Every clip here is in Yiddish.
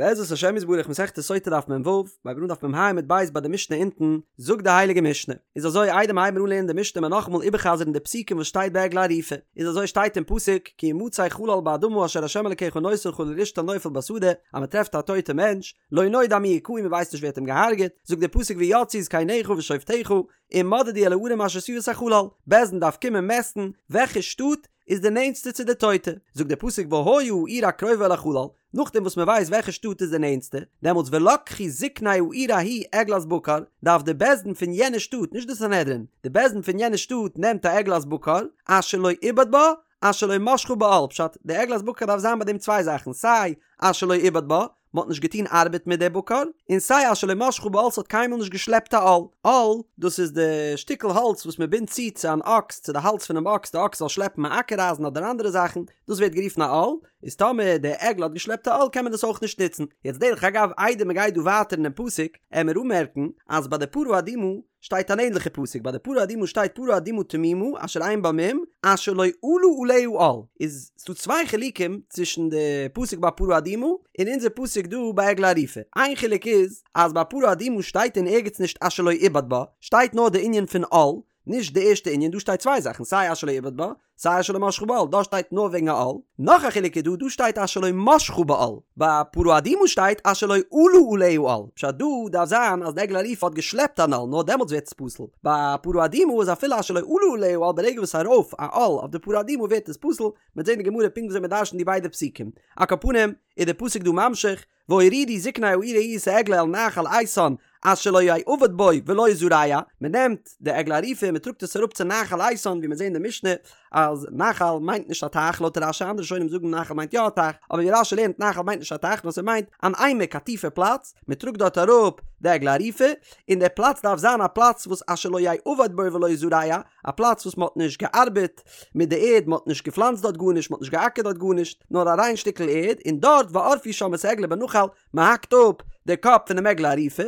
בעזרת השם יתברך מסכת סוטה דף מ"ו, מ'הייבט אן דף מ"ה עמוד ב' ביי די משנה אונטן, זאגט די הייליגע משנה, איז אזוי איידער מ'הייבן אן לערנען די משנה מען נאכאמאל איבערחזר'ן די פסוקים וואס שטייט ביי עגלה ערופה, איז אזוי שטייט אין פסוק, כי ימצא חלל באדמה אשר ה' אלקיך נותן לך לרשתה נופל בשדה, אז מ'טרעפט א טויטע מענטש, לא נודע מי הכהו מ'ווייסט נישט ווער האט אים געהארגעט, זאגט די פסוק ויצאו זקניך ושופטיך, ומדדו אל הערים אשר סביבות החלל, בית דין דארף קומען מעסטן וועלכע שטאט איז די נענטסטע צו די טויטע, זאגט דער פסוק והיה העיר הקרובה אל החלל, נאכדעם וואס מען ווייסט וועלכע שטאט איז די נענטסטע, דעמאלטס ולקחו זקני העיר ההיא עגלת בקר, דארף די בית דין פון יענע שטאט, נישט די סנהדרין, די בית דין פון יענע שטאט נעמט א עגלת בקר, אשר לא עובד בה, אשר לא משכה בעול, פשט, די עגלת בקר דארף זיין ביי דעם צוויי זאכן, סיי אשר לא עובד בה, מען האט נישט געטון ארבעט מיט די בקר, און סיי אשר לא משכה בעול ס'האט קיינמאל נישט געשלעפט א עול. עול, דאס איז די שטיקל האלץ וואס מען בינדט צו צו אן אקס, צו די האלז פונעם אקס, די אקס זאל שלעפן א אקער אייזן אדער אנדערע זאכן, דאס ווערט גערופן א עול, איז טאמער די עגלה האט געשלעפט א עול קען מען דאס אויך נישט נוצן. יעצט דרך אגב איידער מען גייט דא ווייטער אינעם פסוק, עמיר אנמערקן אז ביי די פרה אדומה שטייט אן ענליכע פסוק, ביי די פרה אדומה שטייט פרה אדומה תמימה אשר אין בה מום אשר לא עלה עליה עול, איז ס'דא צוויי חילוקים צווישן די פסוק ביי פרה אדומה און אונזער פסוק דא ביי עגלה ערופה, איין חילוק איז אז ביי פרה אדומה שטייט אין ערגעץ נישט אשר לא עובד בה, שטייט נאר די ענין פון עול, נישט די ערשטע ענין, דא שטייט צוויי זאכן סיי אשר לא עובד בה, סיי אשר לא משכה בעול, דא שטייט נאר וועגן א עול. נאך א חילוק איז דא, דא שטייט אשר לא משכה בעול, ביי פרה אדומה שטייט אשר לא עלה עליה עול, פשט דא דארף זיין אז די עגלה ערופה האט געשלעפט אן עול, נאר דעמאלטס ווערט עס פסול, ביי פרה אדומה איז אפילו אשר לא עלה עליה עול ברגע וואס ארויף א עול אויף די פרה אדומה ווערט עס פסול, מ'וועט זען אין גמרא פונקט וויאזוי מ'דרש'נט די ביידע פסוקים. על כל פנים איז די פסוק דא ממשיך, והורידו זקני העיר ההיא את העגלה אל נחל איתן אשר לא יעבד בו ולא יזרע, מען נעמט די עגלה ערופה און מען טראגט עס אראפ צו נחל איתן, ווי מיר זעהן אין די משנה אז נחל מיינט נישט א טייך לויט רש"י, אנדערע ראשונים זאגן נחל מיינט יא א טייך, אבער ווי רש"י לערנט נחל מיינט נישט א טייך נאר ס'מיינט אן עמק א טיפע פלאץ, מען טראגט דארט אראפ די עגלה ערופה, און דער פלאץ דארף זיין א פלאץ וואס אשר לא יעבד בו ולא יזרע, א פלאץ וואס מען האט נישט געארבעט מיט די ערד, מען האט נישט געפלאנצט דארט גארנישט, מען האט נישט געאקערט דארט גארנישט, נאר א ריין שטיקל ערד, און דארט וערפו שם את העגלה בנחל, מען האקט אפ די קאפ פונעם עגלה ערופה.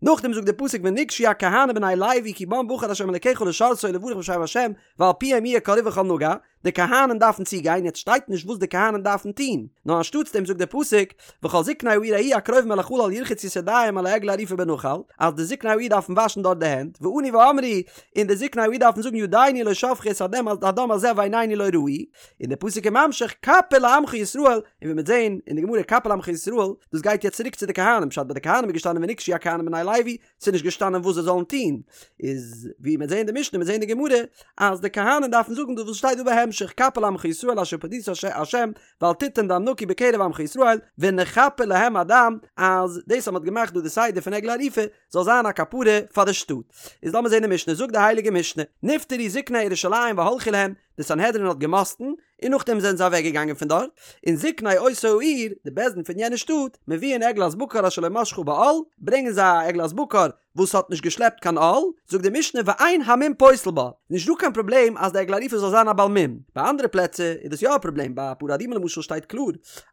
נאכדעם זאגט דער פסוק ונגשו הכהנים בני לוי כי בם בחר ה' אלקיך לשרתו ולברך בשם ה' ועל פיהם יהיה כל ריב וכל נגע, די כהנים דארפן צוגיין, יעצט שטייט נישט וואס די כהנים דארפן טון, נאר אנשטאטס דעם זאגט דער פסוק, וכל זקני העיר ההיא הקרובים אל החלל ירחצו את ידיהם על העגלה הערופה בנחל, אז די זקני העיר דארפן וואשן דארט די הענט, וענו ואמרו, און די זקני העיר דארפן זאגן ידינו לא שפכו את הדם הדם הזה ועינינו לא ראו, און דער פסוק איז ממשיך כפר לעמך ישראל, און ווי מ'וועט זען אין די גמרא כפר לעמך ישראל, דאס גייט יעצט צוריק צו די כהנים, פשט ביי די כהנים איז געשטאנען ונגשו הכהנים בני לוי, ס'איז נישט געשטאנען וואס זיי זאלן טון, איז ווי מ'וועט זען אין די משנה, מ'וועט זען אין די גמרא, אז די כהנים דארפן זאגן דאס וואס שטייט דא בהמשך, כפר לעמך ישראל אשר פדית ה' ואל תתן דם נקי בקרב עמך ישראל, ונכפר להם הדם, אז דאס אז מ'האט געמאכט דא די סדר פון עגלה ערופה, זאל זיין א כפרה פאר די שטאט. איז לאמיר זען די משנה, זאגט די הייליגע משנה, נפטרו זקני ירושלים והלכו להם, די סנהדרין האט געמאסטן, און נאכדעם זענען זיי אוועק געגאנגען פון דארט, און זקני אותה העיר, די בית דין פון יענע שטאט, מביאין עגלת בקר אשר לא משכה בעול, ברענגען זיי א עגלת בקר וואס האט נישט געשלעפט קיין עול, זאגט די משנה ואין המום פוסל בה, נישט דא קיין פראבלעם אז די עגלה ערופה זאל זיין א בעל מום, ביי אנדערע פלעצער איז דאס יא א פראבלעם, ביי פרה אדומה למשל שטייט קלאר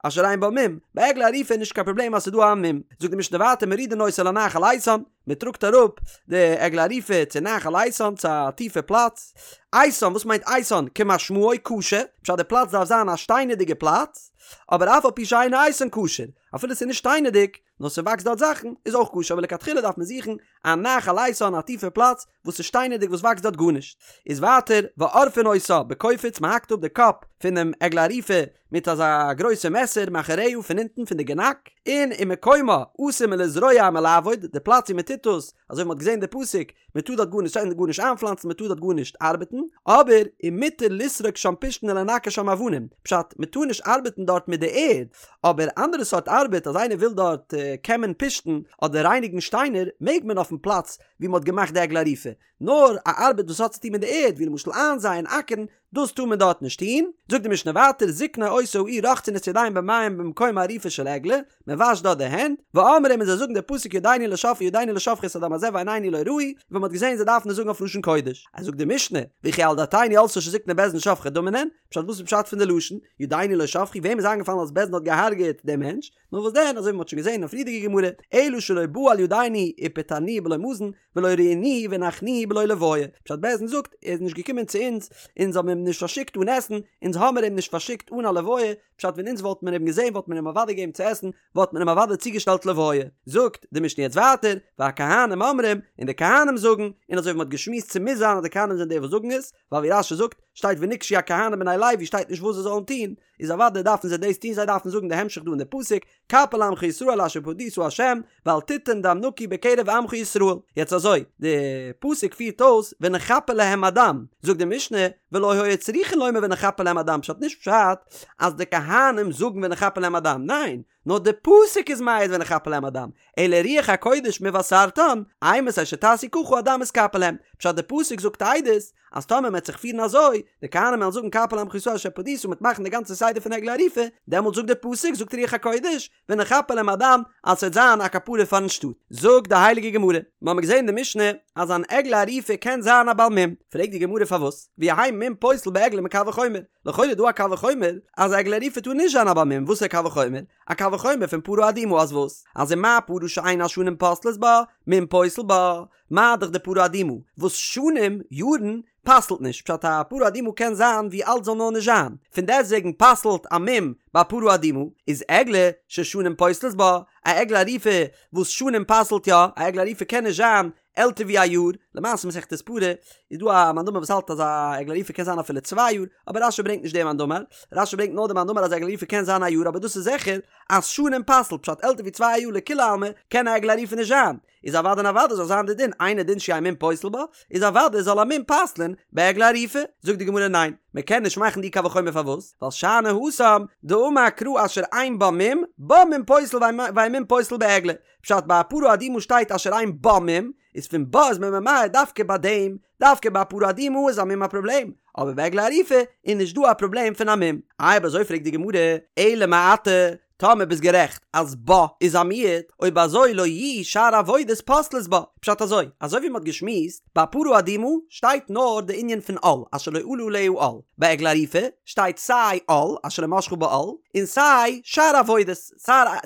אשר אין בה מום, ביי עגלה ערופה איז נישט קיין פראבלעם אז ס'איז דא א מום, זאגט די משנה ווייטער מורידין אותה לנחל איתן, מען טראגט אראפ די עגלה ערופה צו נחל איתן צו א טיפע פלאץ, איתן וואס מיינט איתן? כמשמעו קשה, פשט די פלאץ דארף זיין א שטיינערדיגע פלאץ, אבער אף על פי שאינו איתן כשר, אפילו ס'איז נישט שטיינערדיג, נאר ס'וואקסט דארט זאכן, איז אויך כשר, אבער לכתחילה דארף מען זוכן א נחל איתן א טיפע פלאץ וואס איז שטיינערדיג וואס וואקסט דארט גארנישט. איז ווייטער ועורפין אותה בקופיץ מען האקט אפ די קאפ פונעם עגלה ערופה מיט אזא גרויסע מעסער מאחוריה פון אונטן פון די גענאק, און ומקומה אסור מלזרוע ומלעבוד, די פלאץ ווי מען טוט דאס, אזוי ווי מען האט געזען די פסוק, מען טאר דארט גארנישט גארנישט איינפלאנצן מען טאר דארט גארנישט ארבעטן, אבער ומותר לסרוק שם פשתן ולנקר שם אבנים, פשט, מען טאר נישט ארבעטן דארט מיט די ערד, אבער אנדערע סארט ארבעט אז איינער וויל דארט קעמען פשתן אדער רייניגן שטיינער מעג מען אויפן פלאץ ווי מען האט געמאכט די עגלה ערופה, נאר א ארבעט וואס האט צוטון מיט די ערד ווי למשל איינזייען אקערן דאס טאר מען דארט נישט טון, זאגט די משנה ווייטער זקני אותה העיר רוחצין את ידיהם במים במקום העריפה של עגלה, מען וואשט דארט די הענט, ואומרים און זיי זאגן די פסוק ידינו לא שפכו ידינו לא שפכו את הדם הזה ועינינו לא ראו, ווי מען האט געזען זיי דארפן עס זאגן אויף לשון קודש, אז זאגט די משנה, וכי על דעתינו עלתה שזקני בית דין שופכי דמים הן, פשט וואס איז פשט פון די לשון, ידינו לא שפכו, וועם איז איינגעפאלן אז בית דין האט געהארגעט דעם מענטש, נאר וואס דען אזוי ווי מען האט שוין געזען אין א פריערדיגע גמרא, אלא שלא בא על ידינו ופטרנוהו בלא מזון, ולא ראינוהו והנחנו בלא לוויה, פשט בית דין זאגט ער איז נישט געקומען צו אונז, אונז האבן אים נישט פארשיקט אן עסן, אונז האמיר אים נישט פארשיקט אן א לוויה, פשט ווען אונז וואלט מען אים געזען וואלט מען אים אוודאי געגעבן צו עסן, וואלט מען אים אוודאי צוגעשטעלט לוויה. זאגט די משנה יעצט ווייטער, והכהנים אומרים, און די כהנים זאגן, און אזוי ווי מ'האט געשמועסט ס'מוז זיין אז די כהנים זענען די וואס זאגן עס, ווייל ווי רש"י זאגט, שטייט ונגשו הכהנים בני לוי שטייט נישט וואס זיי זאלן טון, איז אוודאי דארפן זיי דאס טון זיי דארפן זאגן די המשך דא אין די פסוק, כפר לעמך ישראל אשר פדית ה', ואל תתן דם נקי בקרב עמך ישראל. יעצט אזוי, די פסוק פירט אויס ונכפר להם הדם, זאגט די משנה, ולא היו צריכין לומר ונכפר להם הדם, פשט נישט פשט אז די כהנים זאגן ונכפר להם הדם, ניין, נאר די פסוק איז מעיד ונכפר להם הדם, אלא רוח הקודש מבשרתן, אימתי שתעשו ככה הדם יתכפר להם, פשט די פסוק זאגט עדות אז טאמער מ'עט זיך פירן אזוי, די כהנים וועלן זאגן כפר לעמך ישראל אשר פדית און מ'עט מאכן די גאנצע סדר פון עגלה ערופה, דעמאלט זאגט די פסוק, זאגט רוח הקודש, ונכפר להם הדם, אז ס'וועט זיין א כפרה פארן שטאט. זאגט די הייליגע גמרא, מ'האמיר געזען אין די משנה אז אן עגלה ערופה קען זיין א בעל מום, פרעגט די גמרא פארוואס, ויהא מום פוסל בעגלה מקל וחומר, לכאורה איז דא א קל וחומר אז עגלה ערופה טאר נישט זיין א בעל מום, וואס איז א קל וחומר? א קל וחומר פון פרה אדומה אז וואס? אז ומה פרה שאין השנים פוסלות בה, מום פוסל בה, מה דאך די פרה אדומה וואס שנים, יארן, פסל'ט נישט, פשט א פרה אדומה קען זיין ווי אלט זאל נאר נישט זיין, פון דעסטוועגן פסל'ט א מום ביי פרה אדומה, איז עגלה ששנים פוסלות בה, א עגלה ערופה וואס שנים פסל'ט יא, א עגלה ערופה קען נישט זיין עלטער ווי א יאר, למעשה מסכת פרה איז דא א מאן דאמר וואס האלט אז א עגלה ערופה קען זיין אפילו צוויי יאר, אבער רש"י ברענגט נישט די מאן דאמר, רש"י ברענגט נאר די מאן דאמר אז עגלה ערופה קען זיין א יאר אבער דאס איז זיכער אז שנים פסל'ט, פשט עלטער ווי צוויי יאר לכולי עלמא קען א עגלה ערופה נישט זיין, איז אוודאי און אוודאי זאל זיין די דין אינו דין שיהא מום פוסל בה, איז אוודאי זאל א מום פסל'ן בעגלה ערופה, זאגט די גמרא ניין, מען קען נישט מאכן די קל וחומר פארוואס? ווייל שאני התם דאמר קרא אשר אין בה מום, בה מום פוסל ואין מום פוסל בעגלה, פשט ביי א פרה אדומה שטייט אשר אין בה מום, איז פון בה איז מען ממעט דווקא ביי דעם, דווקא ביי א פרה אדומה איז א מום א פראבלעם, אבער ביי עגלה ערופה איז נישט דא א פראבלעם פון א מום. איי אויב אזוי פרעגט די גמרא, אלא מעתה, טאמער ביסט גערעכט אז בה איז א מיעוט, אויב אזוי לא יהו שאר עבודות פוסלות בה. פשט אזוי, אזוי ווי מ'האט געשמועסט, ביי פרה אדומה שטייט נאר די ענין פון עול, אשר לא עלה עליה עול. ביי עגלה ערופה שטייט סיי עול, אשר לא משכה בעול, און סיי שאר עבודות,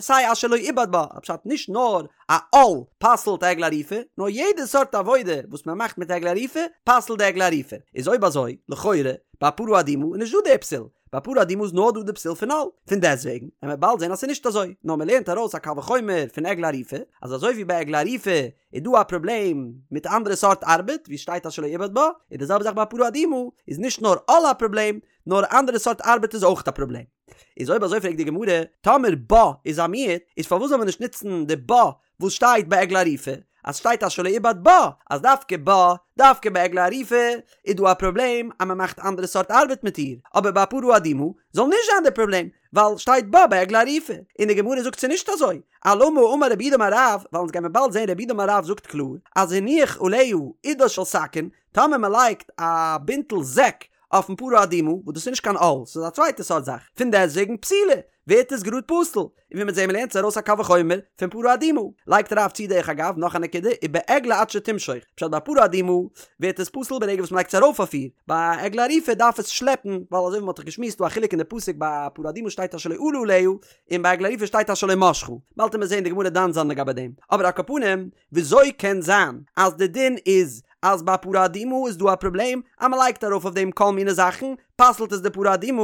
סיי אשר לא עובד בה, פשט נישט נאר א עול פסל'ט עגלה ערופה, נאר יעדע סארט עבודה וואס מ'מאכט מיט עגלה ערופה, פסל'ט די עגלה ערופה. איז אויב אזוי, לכאורה, ביי פרה אדומה איז נישט דא די פסול, ביי פרה אדומה איז נאר דא די פסול פון עול, פון דעסטוועגן וועט מען באלד זען אז ס'איז נישט אזוי, נאר מ'לערנט ארויס א קל וחומר פון עגלה ערופה, אז אזוי ווי ביי עגלה ערופה איז דא א פראבלעם מיט אנדערע סארט ארבעט, ווי שטייט אשר לא עובד בה, איז די זעלבע זאך ביי פרה אדומה, איז נישט נאר עול א פראבלעם, נאר אנדערע סארט ארבעט איז אויך א פראבלעם. איז אויב אזוי פרעגט די גמרא, טאמער בה איז א מיעוט, איז פארוואס זאל מען נישט נוצן די בה וואס שטייט ביי עגלה ערופה, אז שטייט אשר לא עובד בה, אז דווקא בה, דווקא ביי עגלה ערופה, איז דא א פראבלעם אז מען מאכט אנדערע סארט ארבעט מיט איר, אבער ביי פרה אדומה זאל נישט זיין די פראבלעם, ווייל שטייט בה ביי עגלה ערופה, און די גמרא זאגט ס'איז נישט אזוי, אלמה אמר רב יהודה אמר רב, ווייל אונז גיימיר באלד זען רב יהודה אמר רב זאגט קלאר, אז הניח עליה עודה של שקין, טאמער מען לייגט א בינטל זעק אויפן פרה אדומה, וואס דאס איז נישט קיין עול, ס'איז א צווייטע סארט זאך, פון דעסטוועגן פסולה, ווערט עס גראד פסול, און ווי מ'וועט זען מ'לערנט עס ארויס א קל וחומר פון פרה אדומה, לייגט רב צו דרך אגב נאך א נקודה, ובעגלה עד שתמשוך, פשט ביי פרה אדומה ווערט עס פסול ברגע וואס מ'לייגט עס ארויף אויף איר, ביי עגלה ערופה דארף עס שלעפן, ווייל אזוי ווי מ'האט דאך געשמועסט דא א חילוק אין די פסוק ביי פרה אדומה שטייט אשר לא עלה עליה, און ביי עגלה ערופה שטייט אשר לא משכה, באלד וועט מען זען די גמרא דן זיין לגבי דעם, אבער על כל פנים, וויאזוי קען זיין אז די דין איז אז ביי פרה אדומה איז דא א פראבלעם אז מען לייגט ארויף אויף דעם כל מיני זאכן, פסל'ט עס די פרה אדומה,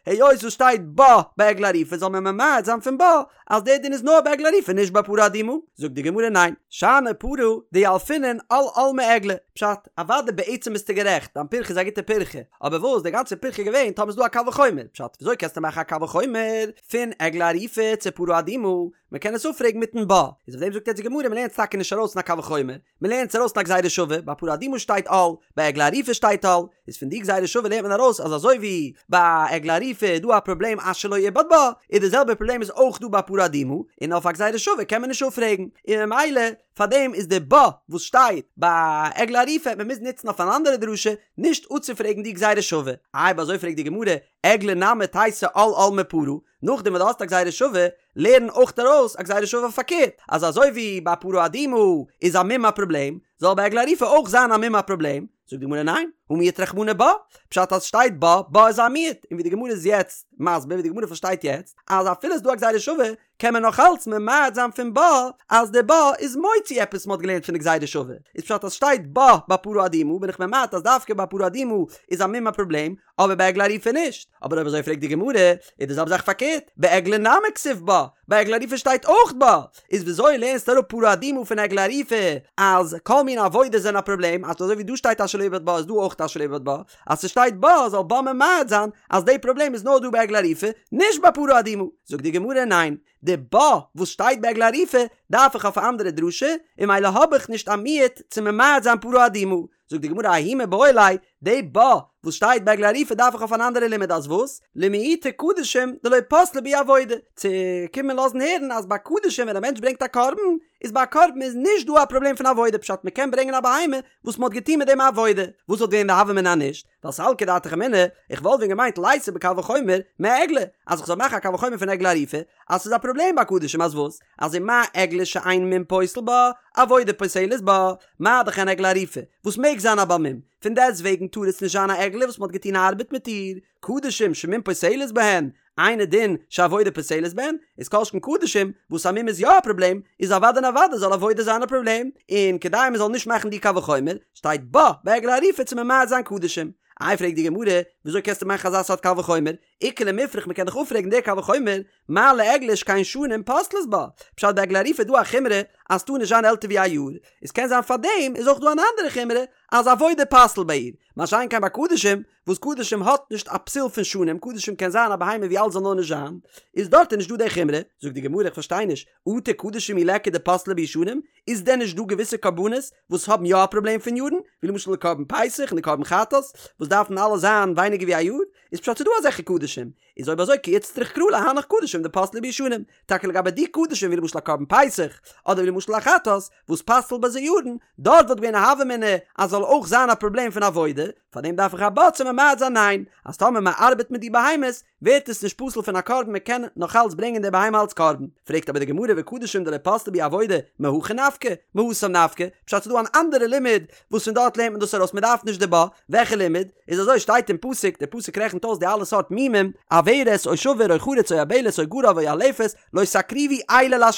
היות עס שטייט בה ביי עגלה ערופה זאל מען ממעט זיין פון בה אז דער דין איז נאר ביי עגלה ערופה נישט ביי פרה אדומה? זאגט די גמרא ניין, שאני פרה דילפינן עול עול מעגלה, פשט, אוודאי בעצם ביסטו גערעכט, דיין פירכא איז א גוטע פירכא, אבער וואס די גאנצע פירכא איז געווען טאמער איז דא א קל וחומר, פשט, וויאזוי קענסטו מאכן א קל וחומר פון עגלה ערופה צו פרה אדומה, מען קען עס אפפרעגן מיטן בה, איז אויף דעם זאגט יעצט די גמרא מען לערנט עס טאקע נישט ארויס אין א קל וחומר, מען לערנט עס ארויס אין א גזירה שווה, ביי פרה אדומה שטייט עול, ביי עגלה ערופה שטייט עול, איז פון די גזירה שווה לערנט מען ארויס אז אזוי ווי ביי עגלה ערופה איז דא א פראבלעם אשר לא עובד בה, איז די זעלבע פראבלעם איז אויך דא ביי פרה אדומה, און אויף א גזירה שווה קען מען נישט אפפרעגן, און ממילא פאר דעם איז די בה וואס שטייט ביי עגלה ערופה מען מוז נוצן אויף אן אנדערע דרשה נישט אפצופרעגן די גזירה שווה, איי אויב אזוי פרעגט די גמרא, עגלה נמי תיתי עול עול מפרה, נאכדעם וואס דו האסט א גזירה שווה, לערן אויך ארויס א גזירה שווה פארקערט, אז אזוי ווי ביי פרה אדומה איז א מום א פראבלעם, זאל ביי עגלה ערופה אויך זיין א מום א פראבלעם, זאגט די גמרא ניין, הא מיעט רחמנא בה, פשט אז שטייט בה, בה איז א מיעוט, און ווי די גמרא איז יעצט מסביר, ווי די גמרא פארשטייט יעצט, אז אפילו איז דא א גזירה שווה, קען מען נאך אלץ ממעט זיין פון בה, אז די בה איז מוציא עפעס מ'האט געלערנט פון די גזירה שווה, איז פשט אז שטייט בה ביי פרה אדומה בין איך ממעט אז דווקא ביי פרה אדומה איז א מום א פראבלעם, אבער ביי עגלה ערופה נישט, אבער אויב אזוי פרעגט די גמרא, איז די זעלבע זאך פארקערט, בעגלה נמי כתיב בה, ביי עגלה ערופה שטייט אויך בה, איז וויאזוי לערנסטו אראפ פרה אדומה פון עגלה ערופה אז כל מיני עבודות זענען א פראבלעם, אז אזוי ווי דא שטייט אשר לא יעבד בה איז דא אויך אשר לא יעבד בה, אז ס'שטייט בה זאל בה ממעט זיין אז די פראבלעם איז נאר דא ביי עגלה ערופה, נישט ביי פרה אדומה, זאגט די גמרא ניין, די בה וואס שטייט ביי עגלה ערופה דארף איך אויף א אנדערע דרשה, און ממילא האב איך נישט א מיעוט צו ממעט זיין פרה אדומה, זאגט די גמרא ההוא מיבעי ליה, די בה וואס שטייט ביי עגלה ערופה דארף איך אויף אן אנדערע לימוד אז וואס? למעוטי קדשים דלא פסלה בהו עבודה, צו קומען לאזן הערן אז ביי קדשים ווען א מענטש ברענגט א קרבן, איז ביי א קרבן איז נישט דא א פראבלעם פון עבודה פשט מען קען ברענגען א בהמה וואס מען האט געטון מיט דעם א עבודה, וואס וואלט געווען די הוה אמינא נישט? ווייל סלקא דעתך אמינא, איך וואלט ווען געמיינט ליתי בקל וחומר מעגלה, אז איך זאל מאכן א קל וחומר פון עגלה ערופה, אז ס'איז א פראבלעם ביי קדשים אז וואס? אז ומה עגלה שאין מום פוסל בה, עבודה פוסלת בה, מה דאך אן עגלה ערופה, וואס מעג זיין א בעל מום, פון דעסט וועגן טאר עס נישט זיין א עגלה וואס מ'האט געטון ארבעט מיט איר, קדשים שמום פוסלת בהן, אינו דין שעבודה פוסלת בהן, איז כל שכן קדשים, וואס א מום איז יא א פראבלעם, איז אוודאי און אוודאי זאל עבודה זיין א פראבלעם, און כדי מ'זאל נישט מאכן די קל וחומר, שטייט בה בעגלה ערופה צו ממעט זיין קדשים. איי פרעגט די גמרא, וויאזוי קענסטו מאכן אזא סארט קל וחומר? איכא למיפרך מ'קען דאך אפפרעגן די קל וחומר, מה לעגלה שכן שנים פוסלות בה, פשט ביי עגלה ערופה איז דא א חומרא אז ס'טאר נישט זיין עלטער ווי א יאר, איז קען זיין פארדעם איז אויך דא אן אנדערע חומרא אז עבודה פסל'ט ביי איר, מה שאין כן ביי קדשים, וואס קדשים האט נישט א פסול פון שנים, קדשים קען זיין א בהמה ווי אלט זאל נאר נישט זיין, איז דארט איז נישט דא די חומרא, זאגט די גמרא איך פארשטיי נישט, אטו קדשים מי ליכא דפסלי בהו שנים, איז דען נישט דא געוויסע קרבנות וואס האבן יא א פראבלעם פון יארן, ווי למשל די קרבן פסח און די קרבן חטאת וואס דארפן אלע זיין ווייניגער ווי א יאר, איז פשט ס'דא אזעלכע קדשים, איז אויב אזוי כי איצטריך קרא להנך קדשים דפסלי בהו שנים, טאקע לגבי די קדשים ווי למשל א קרבן פסח, אדער ווי למשל א חטאת, וואס פסל'ט ביי זיי יארן, דארט וואלט געווען א הוה אמינא אז זאל אויך זיין א פראבלעם פון עבודה, פארדעם דארף איך א בה צו ממעט זיין ניין, אז טאמער מען ארבעט מיט די בהמות, ווערט עס נישט פסול פון א קרבן מען קען נאך אלץ ברענגען די בהמה אלץ קרבן. פרעגט אבער די גמרא וקדשים דלא פסלה בהו עבודה מהכא נפקא, מהתם נפקא, פשט ס'דא אן אנדערע לימוד וואס פון דארט לערנט מען דאס ארויס מען דארף נישט די בה, וועלכע לימוד? איז אזוי שטייט אין פסוק, דער פסוק רעכנט אויס די אלע סארט מומים, עורת או שבור או חרוץ או יבלת או גרב או ילפת, לא תקריבו אלה לה',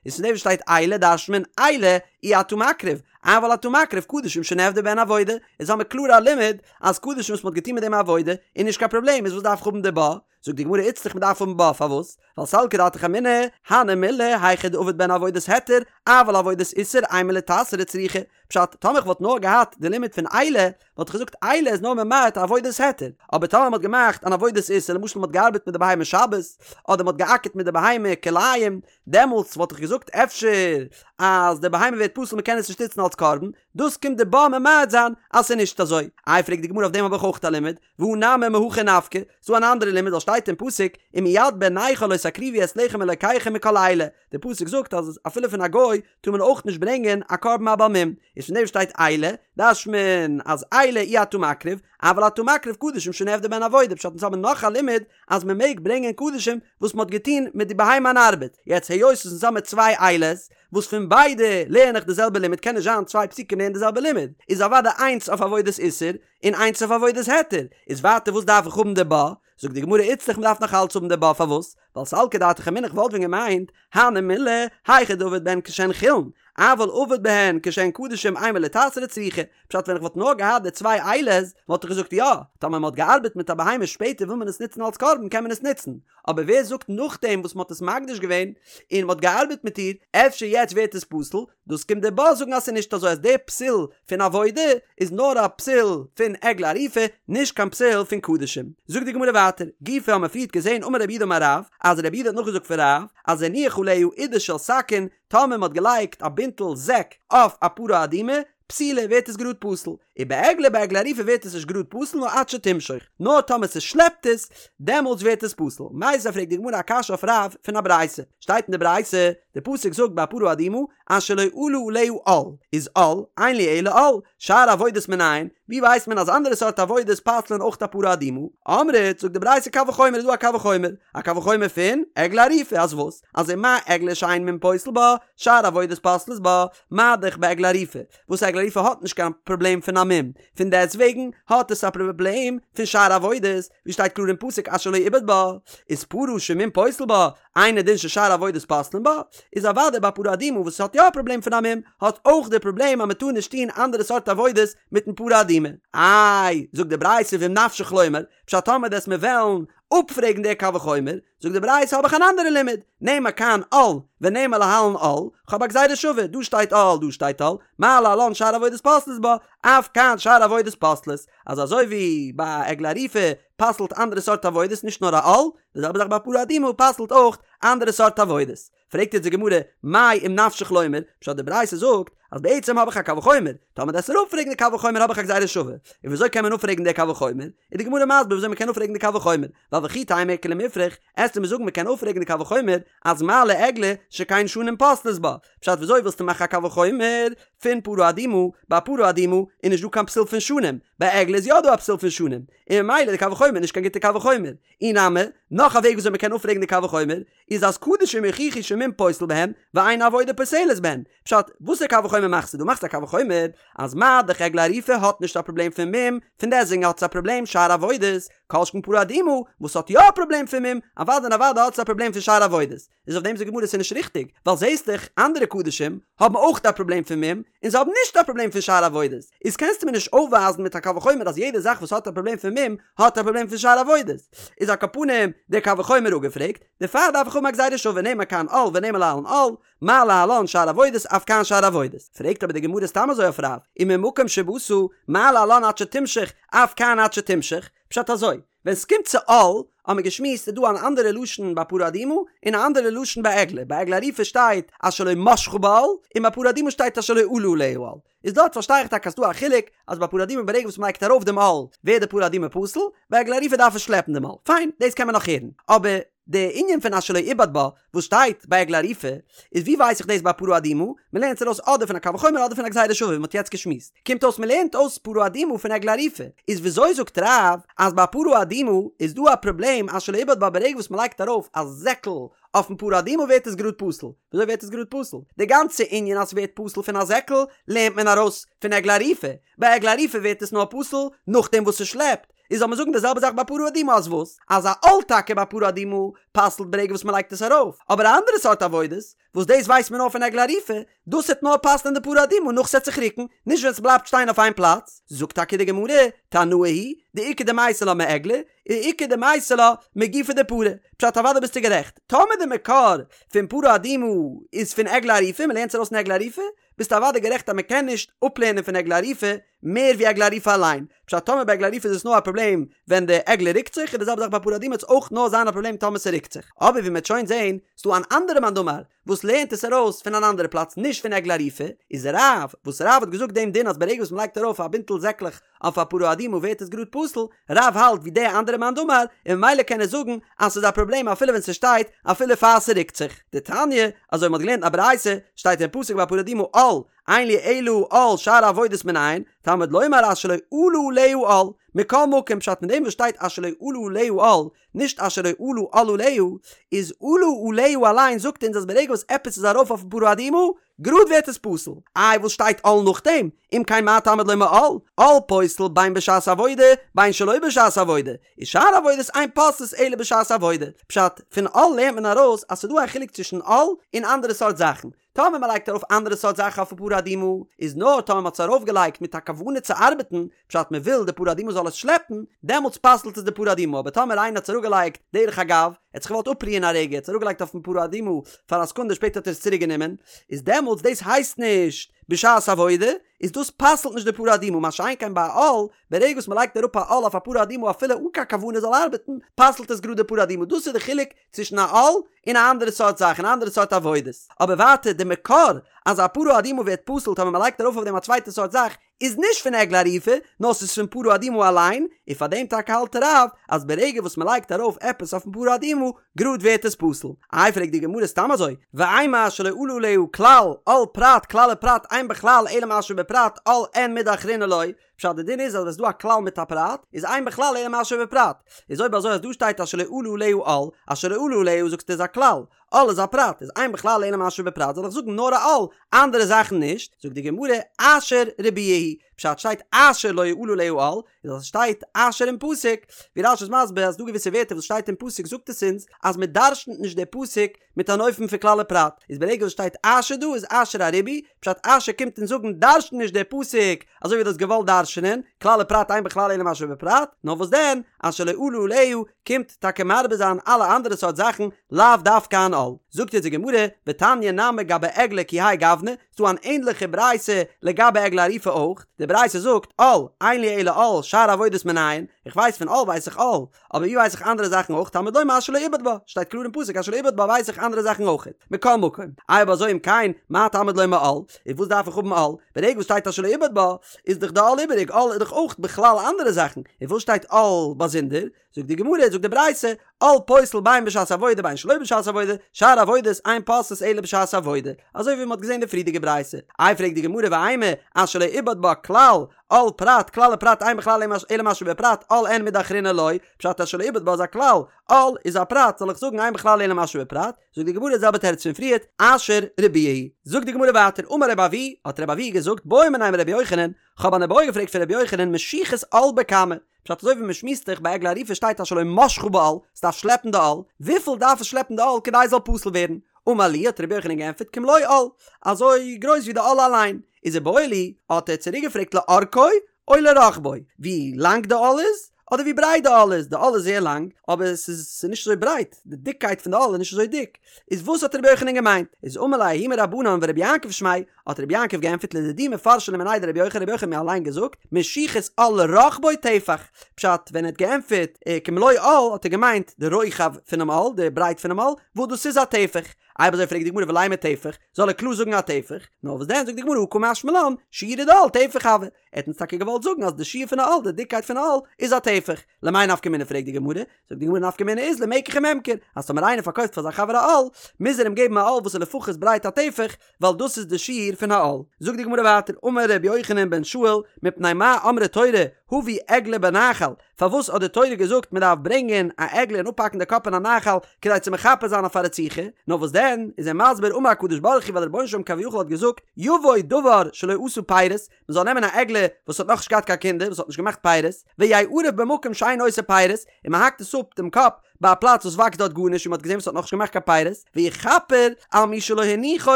איז פון דעם וואס שטייט אלה דרש'נט מען אלה אי אתה מקריב, אבל אתה מקריב קדשים שנעבדה בהן עבודה, איז האמיר קלאר א לימוד אז קדשים וואס מען האט געטון מיט דעם עבודה איז נישט קיין פראבלעם איז וואס דארף איך האבן די בה? זאגט די גמרא איצטריך מען דארף האבן בה פארוואס? ווייל סלקא דעתך אמינא, הני מילי היכא דעבד בהן עבודת היתר, אבל עבודת איסור אימא ליתסרו צריכא, פשט, טאמער איך וואלט נאר געהאט די לימוד פון אלה, וואלט איך געזאגט אלה איז נאר ממעט עבודת היתר, אבער טאמער מ'האט געמאכט אן עבודת איסור, למשל מ'האט געארבעט מיט די בהמה שבת, אדער מ'האט געאקערט מיט די בהמה כלאים, דעמאלטס וואלט איך געזאגט אפשר אז די בהמה ווערט פסול מ'קען עס נישט נוצן אלס קרבן, דאס קומט די בה ממעט זיין אז ס'איז נישט אזוי. איי פרעגט די גמרא אויף דעם האב איך אויך א לימוד, והא נמי מהכא נפקא, ס'דא אן אנדערע לימוד ווייל שטייט אין פסוק ומיד בן נכר לא תקריבו את לחם אלקיכם מכל אלה, די פסוק זאגט אז אפילו פון א גוי טאר מען אויך נישט ברענגען א קרבן א בעל מום, איז פון דעם שטייט אלה, דרש'נט מען אז אלה אי אתה מקריב, אבל אתה מקריב קדשים שנעבדה בהן עבודה, פשט אונז האבן נאך א לימוד אז מען מעג ברענגען קדשים וואס מען האט געטון מיט די בהמה אן ארבעט, יעצט היות אונז האבן צוויי אלה'ס וואס פון ביידע לערן איך די זעלבע לימוד קען נישט זיין צוויי פסוקים לערנען די זעלבע לימוד, איז אוודאי איינס אויף עבודת איסור און איינס אויף עבודת היתר, איז ווייטער וואס דארף איך האבן די בה? זאגט די גמרא איצטריך מ'דארף נאך אלץ האבן די בה פארוואס? ווייל סלקא דעתך אמינא איך וואלט ווען געמיינט הני מילי היכא דעבד בהן כשהן חולין אבל עבד בהן כשהן קדשים אימא ליתסרו צריכא פשט ווען איך וואלט נאר געהאט די צוויי אלה'ס וואלט איך געזאגט יא טאמער מ'האט געארבעט מיט א בהמה שפעטער וויל מען עס נוצן אלץ קרבן קען מען עס נוצן אבער ווער זאגט נאכדעם וואס מ'האט עס מקדיש געווען און מ'האט געארבעט מיט איר אפשר יעצט ווערט עס פסול דאס קומט די בה זאגן אז ס'איז נישט אזוי אז די פסול פון עבודה איז נאר א פסול פון עגלה ערופה נישט קיין פסול פון קדשים. זאגט די גמרא ווייטער, גופא האמיר פריערט געזען אמר רב יהודה אמר רב, אז רב יהודה האט נאכגעזאגט פון רב, אז הניח עליה עידה של שקין, טאמער מ'האט געלייגט א בינטל זעק אויף א פרה אדומה, פסולה ווערט עס גראד פסול, ובעגלה ביי עגלה ערופה ווערט עס נישט גראד פסול נאר עד שתמשוך, נאר טאמער ס'שלעפט עס, דעמאלטס ווערט עס פסול. מיתיבי פרעגט די גמרא א קשיא אויף רב פון א ברייתא, שטייט אין די ברייתא, די פסוק זאגט ביי פרה אדומה, אשר לא עלה עליה עול, איז עול, אין לי אלא עול, שאר עבודות מנין, ווי ווייסט מען אז אנדערע סארט עבודות פסל'ען אויך א פרה אדומה? אמרת, זאגט די ברייתא קל וחומר איז דא א קל וחומר, א קל וחומר פון עגלה ערופה, אז וואס? אז ומה עגלה שאין מום פוסל בה, שאר עבודות פוסלות בה, מה דאך בעגלה ערופה, וואס עגלה ערופה האט נישט קיין פראבלעם פון א מום. מום, פון דעסט וועגן האט עס א פראבלעם פון שאר עבודות, ווי שטייט קלאר אין פסוק אשר לא עובד בה, איז פרה שמום פוסל בה, אינו דין ששאר עבודות פוסלין בה, איז אוודאי ביי פרה אדומה וואס האט יא א פראבלעם פון א מום, האט אויך די פראבלעם אז מען טאר נישט טון אנדערע סארט עבודות מיטן פרה אדומה. איי, זאגט די ברייתא ואם נפשך לומר, פשט טאמער דו'סט מיר וועלן אפפרעגן די קל וחומר, זאגט די ברייתא האב איך אן אנדערע לימוד, נאמר כאן עול ונאמר להלן עול, כ'האב א גזירה שווה, דא שטייט עול דא שטייט עול, מה להלן שאר עבודות פוסלות בה, אף כאן שאר עבודות פוסלות, אז אזוי ווי ביי עגלה ערופה פסל'ט אנדערע סארט עבודות נישט נאר א עול, די זעלבע זאך ביי פרה אדומה פסל'ט אויך אנדערע סארט עבודות. פרעגט יעצט די גמרא, מאי אם נפשך לומר, פשט די ברייתא זאגט אז בעצם האב איך א קל וחומר, טאמער דו'סט מיר אפפרעגן די קל וחומר האב איך א גזירה שווה, און וויאזוי קען מען אפפרעגן די קל וחומר? איז די גמרא מסביר וויאזוי מען קען אפפרעגן די קל וחומר, ווייל וכי תימא איכא למיפרך, עסטו מיר זאגן מען קען אפפרעגן די קל וחומר אז מה לעגלה שכן שנים פוסלות בה, פשט וויאזוי ווילסטו מאכן א קל וחומר פון פרה אדומה, ביי פרה אדומה איז נישט דא קיין פסול פון שנים, ביי עגלה איז יא דא א פסול פון שנים, און ממילא די קל וחומר איז נישט קיין גוטע קל וחומר. אי נמי, נאך א וועג וויאזוי מען קען אפפרעגן די קל וחומר, איז אז קדשים יוכיחו שמום פוסל בהם, ואין עבודה פוסלת בהם. פשט, וואסער קל וחומר מאכסטו דא? מאכסט א קל וחומר אז מה דאך עגלה ערופה האט נישט א פראבלעם פון מום, פון דעסטוועגן האט עס א פראבלעם שאר עבודות, כל שכן פרה אדומה וואס האט יא א פראבלעם פון מום, אוודאי און אוודאי האט עס א פראבלעם פון שאר עבודות. איז אויף דעם זאגט די גמרא ס'איז נישט ריכטיג, ווייל זעהסט דאך אנדערע קדשים האבן אויך א פראבלעם פון מום, און זיי האבן נישט א פראבלעם פון שאר עבודות, איז קענסטו מיר נישט אויפווייזן מיט א קל וחומר אז יעדע זאך וואס האט א פראבלעם פון מום האט א פראבלעם פון שאר עבודות. איז על כל פנים דער קל וחומר אפגעפרעגט, דערפאר דארף איך האבן א גזירה שווה נאמר כאן עול ונאמר להלן עול, מה להלן שאר עבודות אף כאן שאר עבודות. פרעגט אבער די גמרא סתם אזוי אויף רב, וממקום שבאת מה להלן עד שתמשוך אף כאן עד שתמשוך, פשט אזוי, ווען ס'קומט צו עול, האט מען געשמועסט איז דא אן אנדערע לשון ביי פרה אדומה, און א אנדערע לשון ביי עגלה, ביי עגלה ערופה שטייט אשר לא משכה בעול, און ביי פרה אדומה שטייט אשר לא עלה עליה העול. איז דארט פארשטיי איך טאקע אז ס'דא א חילוק, אז ביי פרה אדומה ברגע וואס מ'לייגט ארויף דעם עול, ווערט די פרה אדומה פסול, ביי עגלה ערופה דארף עס שלעפן דעם עול. פיין, דאס קען מען נאך הערן. אבער די ענין פון אשר לא עובד בה, וואס שטייט ביי עגלה ערופה, איז ווי ווייס איך דאס ביי פרה אדומה? מ'לערנט עס ארויס אדער פון א קל וחומר אדער פון א גזירה שווה ווי מ'האט יעצט געשמועסט. קומט אויס מ'לערנט אויס פרה אדומה פון עגלה ערופה. איז וויאזוי זאגט רב אז ביי פרה אדומה איז דא א פראבלעם אשר לא עובד בה ברגע וואס מ'לייגט ארויף א זעקל אויפן פרה אדומה ווערט עס גראד פסול? וויאזוי ווערט עס גראד פסול? די גאנצע ענין אז ס'ווערט פסול פון א זעקל לערנט מען ארויס פון עגלה ערופה. ביי עגלה ערופה ווערט עס נאר פסול נאכדעם וואס ס'שלעפט. איז זאל מען זאגן די זעלבע זאך ביי פרה אדומה אז וואס? אז א עול טאקע ביי פרה אדומה פסל'ט ברגע וואס מ'לייגט עס ארויף, אבער א אנדערע סארט עבודות, וואס דאס ווייסט מען נאר פון עגלה ערופה, דאס העט נאר פסל'ען די פרה אדומה נאך ס'עט זיך רוקן, נישט ווען ס'בלייבט שטיין אויף איין פלאץ. זאגט טאקע די גמרא, תנאי היא, דאיכא דמייתי לה מעגלה, ואיכא דמייתי לה מגופה דפרה. פשט אוודאי ביסטו גערעכט, טאמער די מקור פון פרה אדומה איז פון עגלה ערופה, מ'לערנט עס ארויס פון עגלה ערופה, ביסטו אוודאי גערעכט אז מ'קען נישט אפלערנען פון עגלה ערופה מער ווי עגלה ערופה אליין. פשט טאמער ביי עגלה ערופה איז עס נאר א פראבלעם ווען די עגלה רוקט זיך, איז די זעלבע זאך ביי פרה אדומה וועט עס אויך נאר זיין א פראבלעם טאמער ס'רוקט זיך. אבער ווי מ'וועט שוין זעהן, ס'דא אן אנדערע מאן דאמר וואס לערנט עס ארויס פון אן אנדערע פלאץ נישט פון עגלה ערופה, איז רב, וואס רב האט געזאגט דעם דין אז ברגע וואס מ'לייגט ארויף א בינטל זעקלעך אויף א פרה אדומה ווערט עס גראד פסול, רב האלט ווי די אנדערע מאן דאמר, און ממילא קען ער זאגן אז ס'איז א פראבלעם אפילו ווען ס'שטייט אפילו פאר ס'רוקט זיך. דתניא, אזוי מ'האט געלערנט אין א ברייתא, שטייט אין פסוק ביי פרה אדומה עול, אין לי אלא עול שאר עבודות מנין, תלמוד לומר אשר לא עלה עליה עול, מכל מקום פשט אין דעם וואס שטייט אשר לא עלה עליה עול, נישט אשר לא עלה עול עליה, איז עלה עליה אליין זאגט אונז אז ברגע וואס עפעס איז ארויף אויפן פרה אדומה, גראד ווערט עס פסול. איי וואס שטייט עול נאכדעם? אם כן מה תלמוד לומר עול? עול פוסל בין בשעת עבודה בין שלא בשעת עבודה, ושאר עבודות אין פוסלות אלא בשעת עבודה. פשט, פון עול לערנט מען ארויס אז ס'דא א חילוק צווישן עול און אנדערע סארט זאכן. טאמער מען לייגט ארויף אנדערע סארט זאכן אויפן פרה אדומה, איז נאר טאמער מען האט עס ארויף געלייגט מיט א כוונה צו ארבעטן, פשט מען וויל די פרה אדומה זאל עס שלעפן, דעמאלטס פסל'ט עס די פרה אדומה, אבער טאמער איינער האט עס אראפגעלייגט דרך אגב, ער האט זיך געוואלט אפרוען א רגע, ער האט עס אראפגעלייגט אויפן פרה אדומה פאר א סעקונדע שפעטער האט ער עס צוריק גענומען, איז דעמאלטס דאס הייסט נישט בשעת עבודה, איז דאס פסל'ט נישט די פרה אדומה, מה שאין כן ביי א עול, ברגע וואס מען לייגט אראפ א עול אויף א פרה אדומה אפילו אן קיין כוונה זאל ארבעטן, פסל'ט עס גראד די פרה אדומה, דאס איז די חילוק צווישן א עול און א אנדערע סארט זאך און אנדערע סארט עבודות. אבער ווייטער די מקור אז א פרה אדומה ווערט פסול טאמער מען לייגט ארויף אויף דעם א צווייטע סארט זאך איז נישט פון עגלה ערופה נאר ס'איז פון פרה אדומה אליין, און פאר דעם טאקע האלט רב אז ברגע וואס מען לייגט ארויף עפעס אויפן פרה אדומה גראד ווערט עס פסול. איי פרעגט די גמרא סתם אזוי, ואימא אשר לא עלה עליה כלל עול פרט כלל ופרט אין בכלל אלא מה שבפרט עול אין מידי אחרינא לא, פשט די דין איז אז ווען ס'דא א כלל מיט א פרט איז אין בכלל אלא מה שבפרט, איז אויב אזוי אז דא שטייט אשר לא עלה עליה עול, אשר לא עלה עליה זאגסטו איז א כלל, עול איז א פרט, איז אין בכלל אלא מה שבפרט זאל איך זאגן נאר א עול, אנדערע זאכן נישט, זאגט די גמרא אשר ריבויא הוא, פשט שטייט אשר לא עלה עליה עול, איז אז ס'שטייט אשר אין פסוק, ווי רש"י איז מסביר אז ס'דא געוויסע ווערטער וואס שטייט אין פסוק זאגט עס אונז אז מ'דרשנ'ט נישט די פסוק מיט אן אופן פון כלל ופרט, איז ברגע וואס שטייט אשר דא איז אשר א ריבוי, פשט אשר קומט אונז זאגן דרש'ן נישט די פסוק אזוי ווי דו האסט געוואלט דרש'נען, כלל ופרט אין בכלל אלא מה שבפרט, נאר וואס דען, אשר לא עלה עליה קומט טאקע מרבה זיין אלע אנדערע סארט זאכן, לאו דווקא אן עול. זאגט אונז די גמרא, ותניא נמי גבי עגלה כי האי גוונא, ס'דא אן ענדליכע ברייתא לגבי עגלה ערופה אויך, די ברייתא זאגט, עול, אין לי אלא עול, שאר עבודות מנין, איך ווייס פון עול ווייס איך עול, אבער ווי ווייס איך אנדערע זאכן אויך, תלמוד לומר אשר לא עיבד בה, שטייט קלאר אין פסוק אשר לא עיבד בה ווייס איך אנדערע זאכן אויך, מכל מקום, אויב אזוי אם כן, מה תלמוד לומר עול, איז וואס דארף איך האבן עול, ברגע וואס שטייט אשר לא עיבד בה, איז דאך די עול איבעריג, עול איז דאך אויך בכלל אנדערע זאכן, און וואס שטייט עול באזונדער, זאגט די גמרא, זאגט די ברייתא, עול פוסל בין בשעת עבודה בין שלא בשעת עבודה, שאר עבודות אין פוסלות אלא בשעת עבודה, אזוי ווי מען האט געזען אין די פריערדיגע ברייתא. איי פרעגט די גמרא ואימא, אשר לא עיבד בה כלל, עול פרט, כלל ופרט אין בכלל אלא מה שבפרט, עול אין מידי אחרינא לא, פשט אשר לא עיבד בה איז א כלל, עול איז א פרט, זאל איך זאגן אין בכלל אלא מה שבפרט? זאגט די גמרא די זעלבע תירוץ פון פריערט, אשר ריבויא הוא. זאגט די גמרא ווייטער, אמר רבי אבהו, האט רבי אבהו געזאגט, בעו מיניה מרבי יוחנן, כ'האב אן איבעיא געפרעגט פון רבי יוחנן משיכת עול בכמה, פשט אזוי ווי מען שמועסט זיך ביי עגלה ערופה שטייט אשר לא משכה בעול, ס'דארף שלעפן די עול, וויפיל דארף עס שלעפן די עול כדי עס זאל פסול ווערן? אמר להו האט רבי יוחנן געענטפערט כמלוא עול, אזוי גרויס ווי די עול אליין, איז איבעיא להו, האט ער צוריק געפרעגט לאורכו או לרחבו, ווי לאנג די עול איז, אדער ווי ברייט די עול איז, די עול איז זייער לאנג, אבער עס איז נישט אזוי ברייט, די דיקקייט פון די עול איז נישט אזוי דיק, איז וואס האט רבי יוחנן געמיינט? איז אמר ליה ההוא מרבנן ורבי יעקב שמיה, האט רבי יעקב געענטפערט לדידי מפרשא לי מיניה דרבי יוחנן, רבי יוחנן האט מיר אליין געזאגט, משיכת עול לרחבו טפח, פשט, ווען ער האט געענטפערט כמלוא עול האט ער געמיינט די רוחב פונעם עול, די ברייט פונעם עול, וואס דאס איז א טפח. אויב אזוי פרעגט די גמרא ולימא טפח, זאל ער קלאר זאגן א טפח, נאר וואס דען זאגט די גמרא הא קא משמע לן, שיעורא דעול טפח הוי, ער האט אונז טאקע געוואלט זאגן אז די שיעור פון א עול, די דיקקייט פון א עול, איז א טפח. למאי נפקא מינה פרעגט די גמרא, זאגט די גמרא נפקא מינה איז למקח וממכר, אז טאמער איינער פארקויפט פאר זיין חבר א עול, מוז ער אים געבן א עול וואס איז לפחות ברייט א טפח, ווייל דאס איז די שיעור פון א עול. זאגט די גמרא ווייטער, אמר ר' יוחנן בן שאול, מפני מה אמרה תורה, הבו עגלה בנחל, פארוואס האט די תורה געזאגט מען דארף ברענגען א עגלה און אפהאקן די קאפ אין א נחל, כדי צו מכפר זיין אויף א רציחה? נאר וואס דען, איז ער מסביר, אמר הקדוש ברוך הוא, ווייל דער רבונו של עולם כביכול האט געזאגט, יבוא דבר שלא עשה פירות, מען זאל נעמען א עגלה וואס האט נאכנישט געהאט קיין קינדער, וואס האט נישט געמאכט פירות, ויערף במקום שאין עושה פירות, און מען האקט עס אפ דעם קאפ ביי א פלאץ וואס וואקסט דארט גארנישט און מען האט געזען וואס האט נאכנישט געמאכט קיין פירות, ויכפר על מי שלא הניחו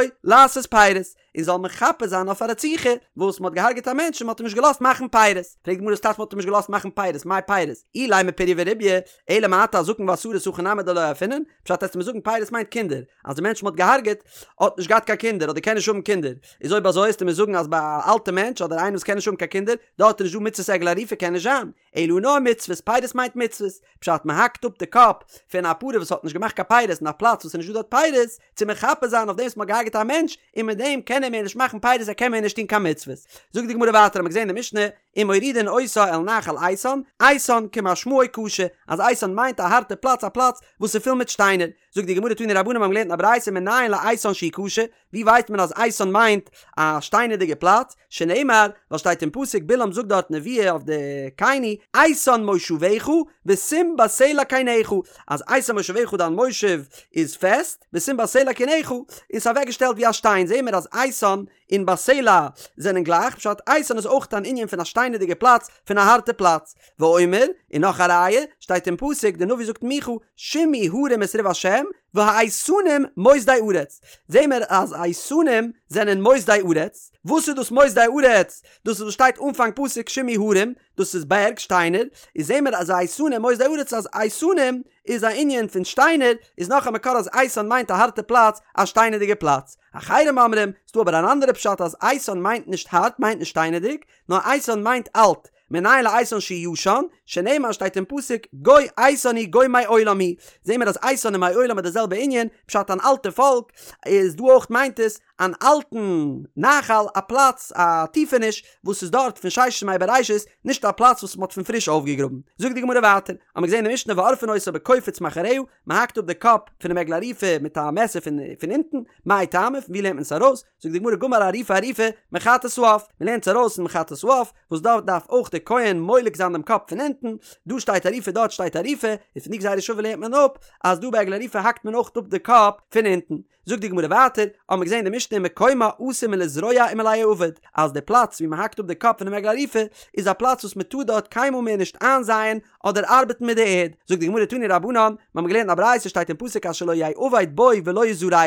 לעשות פירות, און זאל מכפר זיין אויף א רציחה וואס מען האט געהארגעט א מענטש און מען האט אים נישט געלאזט מאכן פירות. פרעגט די גמרא וואס טייטש מען האט אים נישט געלאזט מאכן פירות, מאי פירות? אילימא פריה ורביה, אלא מעתה הזקן והסריס הכי נמי דלא ערפינן, פשט וועסטו מיר זאגן פירות מיינט קינדער, אז די מענטש מען האט געהארגעט האט נישט געהאט קיין קינדער אדער קען נישט האבן קינדער, איז אויב אזוי וועסטו מיר זאגן אז ביי א אלטע מענטש אדער איינער וואס קען נישט האבן קיין קינדער דארט איז נישט דא מצוות עגלה ערופה קען נישט זיין, אלא נאר מצוות, פירות מיינט מצוות, פשט מען האקט אפ די קאפ פון א פרה וואס האט נישט געמאכט קיין פירות אין א פלאץ וואס איז נישט דא דארט פירות, צו מכפר זיין אויף דעם וואס מען האט געהארגעט א מענטש, און מיט דעם קען ער מער נישט מאכן פירות ער קען מער נישט טון קיין מצוות. זאגט די גמרא ווייטער האט מען געזען אין די משנה, ומורידין אותה אל נחל איתן, איתן כמשמעו קשה, אז איתן מיינט א הארטע פלאץ א פלאץ וואס איז פול מיט שטיינער, זאגט די גמרא תנו רבנן מיר האבן געלערנט אין א ברייתא מנין לאיתן שהוא קשה, ווי ווייסט מען אז איתן מיינט א שטיינערדיגע פלאץ, שנאמר, ווייל שטייט אין פסוק בלעם זאגט דארט נבואה אויף די קיני, איתן מושבך ושים בסלע קינך, אז איתן מושבך דיין מושב איז פעסט, ושים בסלע קינך, און ס'איז אוועקגעשטעלט ווי א שטיין, זעהן מיר אז איתן און בסלע זענען גלייך, פשט איתן איז אויך אן ענין פון א שטיינערדיגע פלאץ, פון א הארטע פלאץ. ואומר, און נאך א ראיה, שטייט אין פסוק, די נביא זאגט מיכה, שמעו הרים את ריב השם, והאיתנים מוסדי ארץ. זעהן מיר אז איתנים זענען מוסדי ארץ. וואס איז דאס מוסדי ארץ? דאס איז וואס שטייט אנפאנג פסוק שמעו הרים, דאס איז בערג, שטיינער, איז זעהן מיר אז איתנים מוסדי ארץ אז איתנים איז א ענין פון שטיינער, איז נאך א מקור אז איתן מיינט א הארטע פלאץ, א שטיינערדיגע פלאץ. אחרים אומרים, ס'דא אבער אן אנדערע פשט אז איתן מיינט נישט הארט, מיינט נישט שטיינערדיג, נאר איתן מיינט אלט, מנין לאיתן שהוא ישן, שנאמר שטייט אין פסוק גוי איתן הוא גוי מעולם הוא, זעהן מיר אז איתן און מעולם איז די זעלבע ענין, פשט אן אלטע פאלק, איז דא אויך מיינט עס אן אלטן נחל, א פלאץ, א טיפעניש, וואס איז דארט פון ששת ימי בראשית, נישט א פלאץ וואס מ'האט פון פריש אויפגעגראבן. זאגט די גמרא ווייטער, האמיר געזעהן אין משנה ועורפין אותה בקופיץ מאחוריה, מ'האקט אפ די קאפ פונעם עגלה ערופה מיט א מעסער פון פון אונטן, מאי טעמא, פון ווי לערנט מען עס ארויס? זאגט די גמרא גמר עריפה עריפה מחטאת העוף, מ'לערנט עס ארויס אין חטאת העוף, וואס דארט דארף אויך דער כהן מולק זיין דעם קאפ פון אונטן, דא שטייט עריפה דארט שטייט עריפה, און פון די גזירה שווה לערנט מען אפ אז דא ביי עגלה ערופה האקט מען אויך אפ די קאפ פון אונטן. זאגט די גמרא ווייטער, האמיר געזען אין די משנה. משנה מקומה אסור מלזרוע ומליעבד, אז די פלאץ ווי מען האקט אפ די קאפ פונעם עגלה ערופה איז א פלאץ וואס מען טאר דארט קיינמאל מער נישט איינזייען אדער ארבעטן מיט די ערד. זאגט די גמרא תנו רבנן, מיר האבן געלערנט א ברייתא שטייט אין פסוק אשר לא יעבד בו ולא יזרע,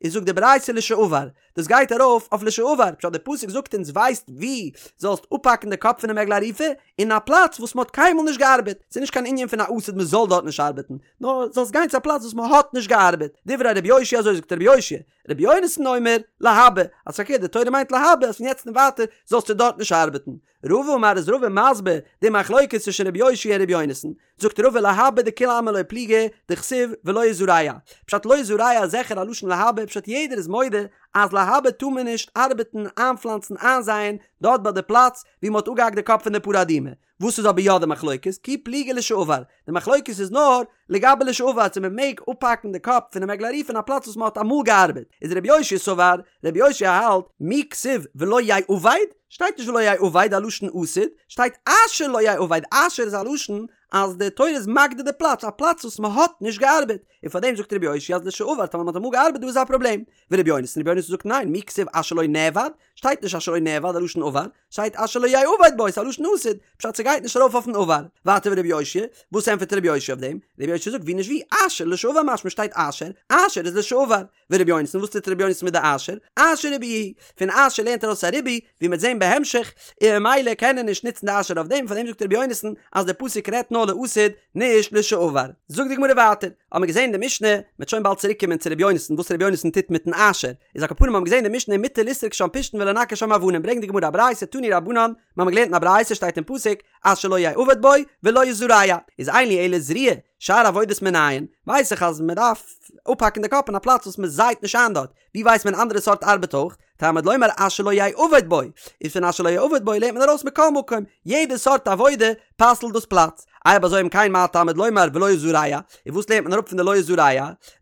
איז זאגט די ברייתא לשעבר, דאס גייט ארויף אויף לשעבר, פשט די פסוק זאגט אונז ווייסט ווי זאלסט אפהאקן די קאפ פונעם עגלה ערופה, אין א פלאץ וואס מען האט קיינמאל נישט געארבעט, ס'איז נישט קיין ענין פון א עתיד מען זאל דארט נישט ארבעטן, נאר זאלסט גיין צו א פלאץ וואס מען האט נישט געארבעט, דברי רבי יאשיה אזוי זאגט רבי יאשיה, רבי יונתן אומר, להבא, אז פארקערט די תורה מיינט להבא אז פון יעצט און ווייטער זאלסטו דארט נישט ארבעטן. רבא אמר איז רבא מסביר די מחלוקת צווישן רבי יאשיה און רבי יונתן, זאגט רבא להבא דכולי עלמא לא פליגי דכתיב ולא יזרע, פשט לא יזרע איז זיכער א לשון להבא פשט יעדער איז מודה אז להבא טאר מען נישט ארבעטן איינפלאנצן איינזייען דארט ביי די פלאץ ווי מען האט אפגעהאקט די קאפ פון די פרה אדומה, וואס איז אבער יא די מחלוקת? כי פליגי לשעבר, די מחלוקת איז נאר לגבי לשעבר צו מען מעג אפהאקן די קאפ פונעם עגלה ערופה אין א פלאץ וואס מען האט אמאל געארבעט, איז רבי יאשיה סבר, רבי יאשיה האלט, מי כתיב ולא יעבד, שטייט נישט ולא יעבד א לשון עתיד, שטייט אשר לא יעבד, אשר איז א לשון אז די תורה איז מגדיר די פלאץ, א פלאץ וואס מען האט נישט געארבעט, און פארדעם זאגט רבי יאשיה אז לשעבר טאמער מען האט אמאל געארבעט דא איז א פראבלעם, ורבי יונתן, רבי יונתן זאגט ניין, מי כתיב אשר לא נעבד, שטייט נישט אשר לא נעבד א לשון עבר, שטייט אשר לא יעבד בו, ס'איז א לשון עתיד, פשט ס'גייט נישט ארויף אויפן עבר. ווייטער ורבי יאשיה, וואס ענטפערט רבי יאשיה אויף דעם? רבי יאשיה זאגט ווי נישט ווי, אשר לשעבר משמע שטייט אשר, אשר איז לשעבר. ורבי יונתן, וואס טוט רבי יונתן מיט די אשר? אשר ריבויא הוא, פון אשר לערנט ער ארויס א ריבוי, ווי מ'וועט זען בהמשך, און ממילא קען ער נישט נוצן די אשר אויף דעם, פארדעם זאגט רבי יונתן אז דער פסוק רעדט נאר לעתיד, נישט לשעבר. זאגט די גמרא ווייטער, האבן מיר געזען אין די משנה, מ'וועט שוין באלד צוריק קומען צו רבי יונתן וואס רבי יונתן טוט מיטן אשר, איז על כל פנים האבן מיר געזען אין די משנה מותר לסרוק שם פשתן ולנקר שם אבנים, ברענגט די גמרא א ברייתא תנו רבנן, מיר האבן געלערנט אין א ברייתא שטייט אין פסוק אשר לא יעבד בו ולא יזרע, איז אין לי אלא זריעה, שאר עבודות מנין, ווייס איך אז מ'דארף אפהאקן די קאפ אין א פלאץ וואס מ'זייט נישט איין דארט, ווי ווייסט מען אנדערע סארט ארבעט אויך? תלמוד לומר אשר לא יעבד בו, איז פון אשר לא יעבד בו לערנט מען ארויס מכל מקום, יעדע סארט עבודה פסל'ט דאס פלאץ. אויב אזוי אם כן מה תלמוד לומר ולא יזרע, און וואס לערנט מען אראפ פון די לא יזרע?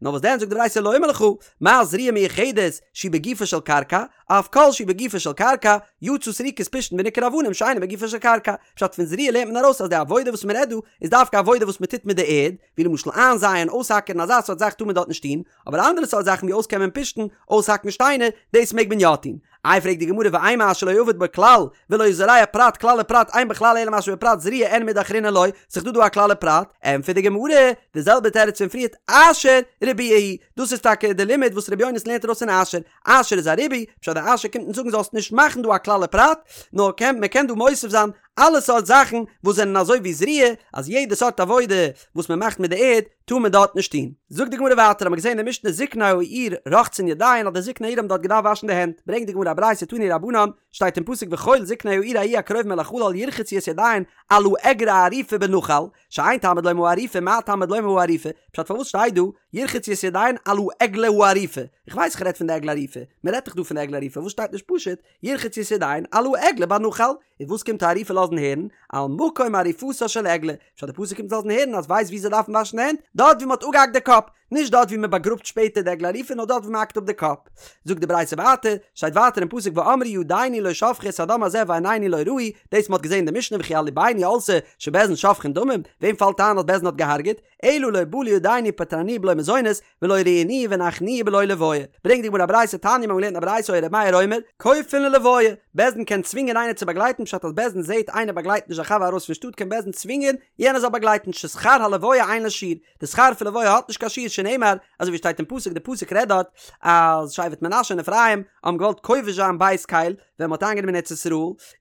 נאר וואס דען זאגט די ברייתא לומר לך, מה זריעה מיוחדת שהיא בגופה של קרקע, אף כל שהוא בגופה של קרקע, יצא סריקת פשתן וניקור אבנים שאינו בגופה של קרקע. פשט פון זריעה לערנט מען ארויס אז די עבודה וואס מען רעדט דא איז דווקא עבודה וואס מען טוט מיט די ערד, ווי למשל איינזייען, אויסהאקערן אזא סארט זאך טאר מען דארט נישט טון, אבער אנדערע סארט זאכן ווי אויסקעמען פשתן, אויסהאקן שטיינער, דאס מעג מען יא טון. איי פרעגט די גמרא ואימא אשר לא יעבד בו כלל, ולא יזרע פרט כלל ופרט אין בכלל אלא מה שבפרט זריעה אין מידי אחרינא לא, ס'איז דא דא א כלל ופרט, ענטפערט די גמרא, די זעלבע תירוץ פון פריערט אשר ריבויא הוא, דאס איז טאקע די לימוד וואס רבי יונתן לערנט ארויס פון אשר, אשר איז א ריבוי, פשט די אשר קומט אונז זאגן זאלסט נישט מאכן דא א כלל ופרט, נאר קען מען קען דא מוסיף זיין אלע סארט זאכן וואס זענען אזוי ווי זריעה, אז יעדע סארט עבודה וואס מען מאכט מיט די ערד טאר מען דארט נישט טון. זאגט די גמרא ווייטער, האט מען געזען אין די משנה זקני העיר רוחצין ידיהן אז די זקני העיר האבן דארט געדארפט וואשן די הענט, ברענגט די גמרא א ברייתא תנו רבנן, שטייט אין פסוק וכל זקני העיר ההיא הקרובים אל החלל ירחצו את ידיהן על העגלה הערופה בנחל, שאין תלמוד לומר הערופה מה תלמוד לומר הערופה, פשט פארוואס שטייט דא ירחצו את ידיהן על העגלה הערופה, איך ווייס איך רעד פון די עגלה ערופה, מען רעדט דאך דא פון די עגלה ערופה, וואס שטייט נישט פשוט ירחצו את ידיהן על העגלה בנחל, און וואס קומט הערופה לאזן הערן? על מקום עריפתה של עגלה, פשט די פסוק קומט לאזן הערן אז ווייסט ווי זיי דארפן וואשן די הענט? דארט ווי מען האט אפגעהאקט די קאפ, נישט דארט ווי מען באגראבט שפעטער די עגלה ערופה נאר דארט ווי מען האקט אפ די קאפ. זאגט די ברייתא ווייטער, שטייט ווייטער אין פסוק ואמרו ידינו לא שפכו את הדם הזה ועינינו לא ראו, דאס מען האט געזען אין די משנה וכי על לבנו עלתה שבית דין שופכין דמים, וועם פאלט איין אז בית דין האט געהארגעט? אלא לא בא לידינו ופטרנוהו בלא מזונות, ולא ראינוהו והנחנו בלא לוויה. ברענגט די גמרא א ברייתא תניא מיר האבן געלערנט א ברייתא היה ר' מאיר אומר, כופין ללוויה, בית דין קען צווינגען איינער צו באגלייטן פשט אז בית דין זעהט איינער באגלייט נישט זיין חבר ארויס פון שטאט קען בית דין צווינגען יענער זאל באגלייטן ששכר הלוויה אין לו שיעור, די שכר פון לוויה האט נישט קיין שיעור שנאמר אזוי ווי שטייט אין פסוק די פסוק רעדט דארט אז שבט מנשה און אפרים האבן געוואלט כובש זיין בית קל ווען מ'האט איינגענומען ארץ ישראל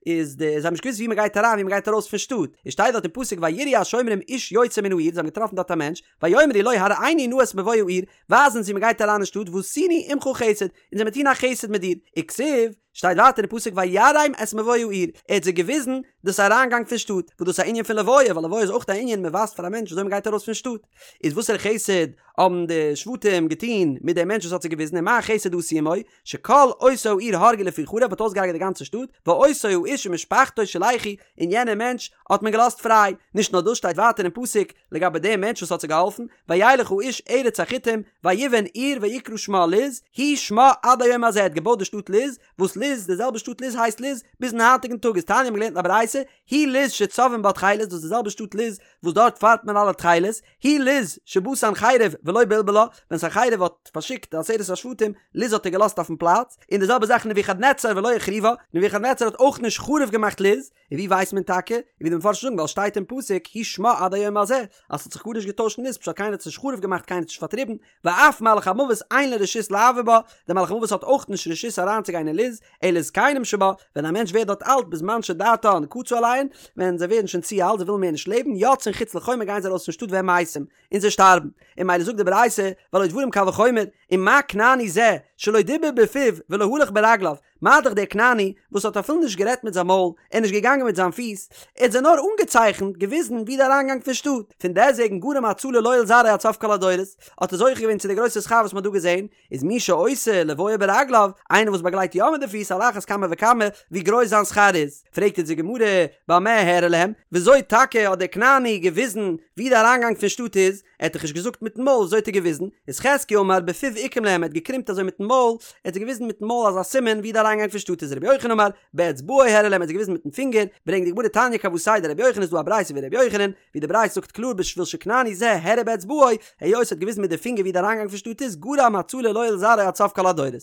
איז די זיי האבן נישט געוואוסט ווי מ'גייט אריין ווי מ'גייט ארויס פון שטאט איז שטייט דארט אין פסוק ויראו השומרים איש יוצא מן העיר זיי האבן געטראפן דארט א מענטש ויאמרו לו הראנו נא את מבוא העיר ווייז אונז ווי מ'גייט אריין אין שטאט ועשינו עמך חסד אונז וועמיר טון א חסד מיט דיר וכתיב שטייט ווייטער אין פסוק ויראם את מבוא העיר, ער האט זיי געוויזן דאס אריינגאנג פון שטאט, וואס דאס איז א ענין פון לוויה, ווייל לוויה איז אויך א ענין מען ווייזט פאר א מענטש וויאזוי מען גייט ארויס פון שטאט, איז וואסערע חסד האבן די שבטים געטון מיט דעם מענטש וואס האט זיי געוויזן ומה חסד עשו עמו, שכל אותה העיר הרגו לפי חרב מ'האט אויסגעהרגעט די גאנצע שטאט, ואותו האיש ומשפחתו שלחו, און יענער מענטש האט מען געלאזט פריי, נישט נאר דאס שטייט ווייטער אין פסוק לגבי דעם מענטש וואס האט זיי געהאלפן, וילך האיש ארץ החתים, ויבן עיר ויקרא שמה לוז, הוא שמה עד היום הזה ער האט געבויט די שטאט לוז, וואס לוז. לוז, די זעלבע שטאט לוז הייסט לוז ביזן היינטיגן טאג איז תניא האבן געלערנט אין א ברייתא, היא לוז שצובעין בה תכלת, דאס איז די זעלבע שטאט לוז וואס דארט פארבט מען אלע תכלת, היא לוז שבא סנחריב ולא בלבלה, ווען סנחריב האט פארשיקט די עשרת השבטים, לוז האט ער געלאזט אויפן פלאץ, און די זעלבע זאך נבוכדנצר ולא החריבה, נבוכדנצר האט אויך נישט חרוב געמאכט לוז, און ווי ווייסט מען טאקע? און ווי די מפרשים זאגן ווייל שטייט אין פסוק הוא שמה עד היום הזה, אז ס'האט זיך גארנישט געטוישט אין לוז פשט קיינער האט עס נישט חרוב געמאכט קיינער האט עס נישט פארטריבן, ואף מלאך המוות אין לו רשות לעבור בה, דער מלאך המוות האט אויך נישט רשות אריינצוגיין אין לוז, אלא זקנים שבה, ווען א מענטש ווערט דארט אלט בזמן שדעתן קצה עליהן, ווען זיי ווערן שוין צו אלט זיי ווילן מער נישט לעבן, יוצאין חוץ לחומה גייען זיי ארויס פון שטאט והם מתים, און זיי שטארבן. און ממילא זאגט די ברייתא, והלא דברים קל וחומר, ומה כנעני זה, שלא דיבר בפיו ולא הלך ברגליו, מה דאך דער כנעני, וואס האט אפילו נישט גערעדט מיט זיין מויל, און נישט געגאנגען מיט זיין פיס, ער האט זיי נאר אנגעצייכנט, געוויזן, ווי די אריינגאנג פון שטאט. פון דעסטוועגן גרם הצלה לו ולזרעו עד סוף כל הדורות, האט ער זוכה געווען צו די גרויסע שכר וואס מען האט דא געזען, איז מי שעושה לוויה ברגליו, איינער וואס באגלייט יא מיט די פיס על אחת כמה וכמה ווי גרויס זיין שכר איז. פרעגט אונז די גמרא, במה הראה להם, וויאזוי טאקע האט דער כנעני געוויזן ווי די אריינגאנג פון שטאט איז, ער האט דאך נישט געזאגט מיטן מויל, וויאזוי האט ער געוויזן? איז חזקיה אמר בפיו עיקם להם, ער האט געקרימט אזוי מיטן מויל, ער האט זיי געוויזן מיטן מויל אזא סימן ווי די אריינגאנג פון שטאט איז רבי יוחנן אמר, באצבעו הראה להם, ער האט זיי געוויזן מיטן פינגער, ברענגט די גמרא תניא כוותיה דרבי יוחנן איז דא א ברייתא ווי רבי יוחנן, ווי די ברייתא זאגט קלאר בשביל שכנעני זה הראה באצבעו, היות ער האט געוויזן מיט די פינגער ווי די אריינגאנג פון שטאט איז, גרם הצלה לו ולזרעו עד סוף כל הדורות.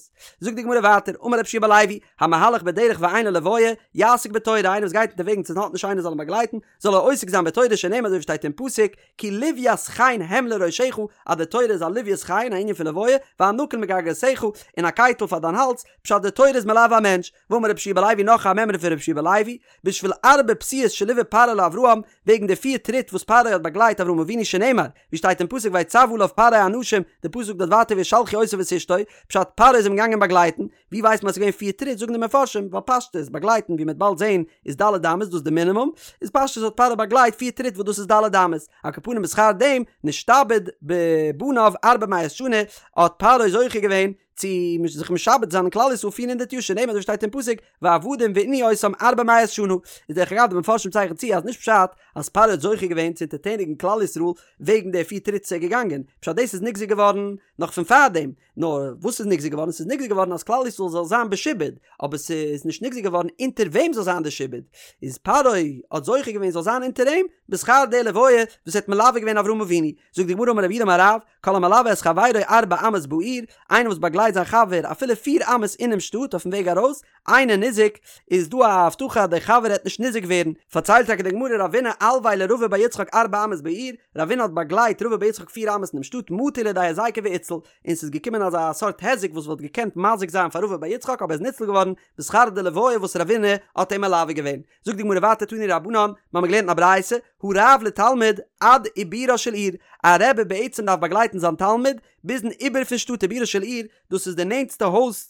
זאגט די גמרא ווייטער, אמר רבי יהושע בן לוי, המהלך בדרך ואין לו לוויה, יעסוק בתורה, איינער וואס גייט אונטערוועגנס און האט נישט איינער זאל אים באגלייטן, זאל ער עוסק זיין בתורה שנאמר אזוי ווי שטייט אין פסוק, כי לוית חן הם לראשך, אז די תורה איז א לוית חן, א ענין פון לוויה, וענקים לגרגרותיך, און א קייטל פאר דיין האלז, פשט די תורה איז מלווה א מענטש, ואמר רבי יהושע בן לוי נאך א מימרא פון רבי יהושע בן לוי, בשביל ארבע פסיעות שליווה פרעה לאברהם, וועגן די פיר טריט וואס פרעה האט באגלייט אברהם אבינו שנאמר, ווי שטייט אין פסוק ויצו עליו פרעה אנשים, די פסוק דארט ווייטער וישלחו אותו ואת אשתו, פשט פרעה איז אים געגאנגען באגלייטן, ווי ווייסט מען אז ס'איז געווען פיר טריט, זאגן די מפרשים, ווייל פשטות, באגלייטן ווי מ'וועט באלד זעהן איז ד' אמות דאס איז די מינימום, איז פשטות האט פרעה באגלייט פיר טריט וואס דאס איז ד' אמות, על כל פנים בשכר דעם, נשתעבד בבניו ארבע מאות שנה, האט פרעה זוכה געווען צו זיך משעבד זיין אין כלל ישראל 400 יאר שנאמר אזוי שטייט אין פסוק ועבדום וענו אותם ארבע מאות שנה איז דרך אגב די מפרשים צייכן צו אז נישט פשט אז פרעה האט זוכה געווען צו אונטערטעניגן כלל ישראל וועגן די פיר טריט איז ער געגאנגען פשט דאס איז נגזר געווארן נאך פון פארדעם נאר וואס איז נגזר געווארן ס'איז נגזר געווארן אז כלל ישראל זאל זיין בשעבוד אבער ס'איז נישט נגזר געווארן אונטער וועם זאל זיין די שעבוד איז פרעה האט זוכה געווען זאל זיין אונטער אים בשכר די לוויה וואס ער האט מלווה געווען אברהם אבינו זאגט די גמרא אמר רב יהודה אמר רב כל המלווה את חברו ארבע אמות בעיר, איינער וואס באגלייט זיין חבר אפילו פיר אמות אינעם שטאט אויפן וועג ארויס, אינו ניזוק, איז דא א הבטחה אז דער חבר העט נישט ניזוק ווערן, פארציילט טאקע די גמרא רבינא אלויה לרבא בר יצחק ארבע אמות בעיר, רבינא האט באגלייט רבא בר יצחק פיר אמות אינעם שטאט מטא לידיה היזיקא ואיתציל, און ס'איז געקומען אזא סארט היזק וואס וואלט געקענט מזיק זיין פאר רבא בר יצחק אבער איז ניצל געווארן בשכר די לוויה וואס רבינא האט אים מלווה געווען. זאגט די גמרא ווייטער תנו רבנן, מיר האבן געלערנט אין א ברייתא, הרב לתלמיד עד עיבורה של עיר, א רבי בעצם דארף באגלייטן זיין תלמיד ביזן עיבור פון שטאט עיבורה של עיר, דאס איז די נענטסטע הויז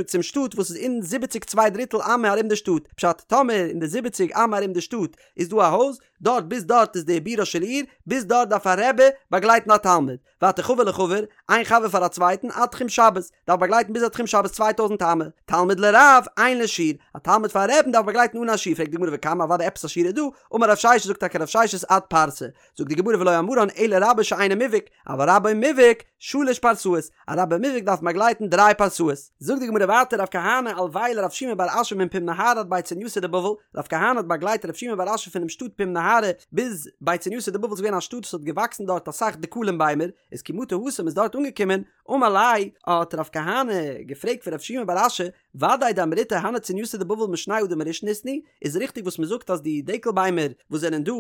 צום שטאט וואס איז אין זיבעציג צוויי דריטל אמה ארום די שטאט, פשט טאמער אין די זיבעציג אמה ארום די שטאט איז דא א הויז, דארט ביז דארט איז די עיבורה של עיר, ביז דארט דארף א רבי באגלייטן א תלמיד. ווייטער חבר לחבר, איין חבר פאר א צווייטן, עד תחום שבת, דארף באגלייטן ביז א תחום שבת 2000 אמה, תלמיד לרב, אין לו שיעור, א תלמיד פאר א רבי'ן דארף באגלייטן אן א שיעור, פרעגט די גמרא וכמה אוודאי עפעס א שיעור איז דא, אמר רב ששת זאגט טאקע רב ששת עד פרסה, זאגט די גמרא ולא אמרן אלא רבו שאינו מובהק, אבל רבו מובהק, שלש פרסאות, א רבו מובהק דארף באגלייטן דריי פרסאות. זאגט די גמרא ווייטער רב כהנא אלויה לרב שימי בר אשי מפום נהרא עד בי צורנייתא דבבל, רב כהנא האט באגלייט רב שימי בר אשי פונעם שטאט פום נהרא ביז בי צורנייתא דבבל איז געווען א שטאט וואס האט געוואקסן דארט אסאך דקלים ביימער, איז כי מטו התם איז דארט אנגעקומען, אמר ליה, האט רב כהנא געפרעגט פון רב שימי בר אשי, ודאי דאמריתו הני צורנייתא דבבל משני אדם הראשון איתנהו, איז ריכטיג וואס מען זאגט אז די דקל ביימער וואס זענען דא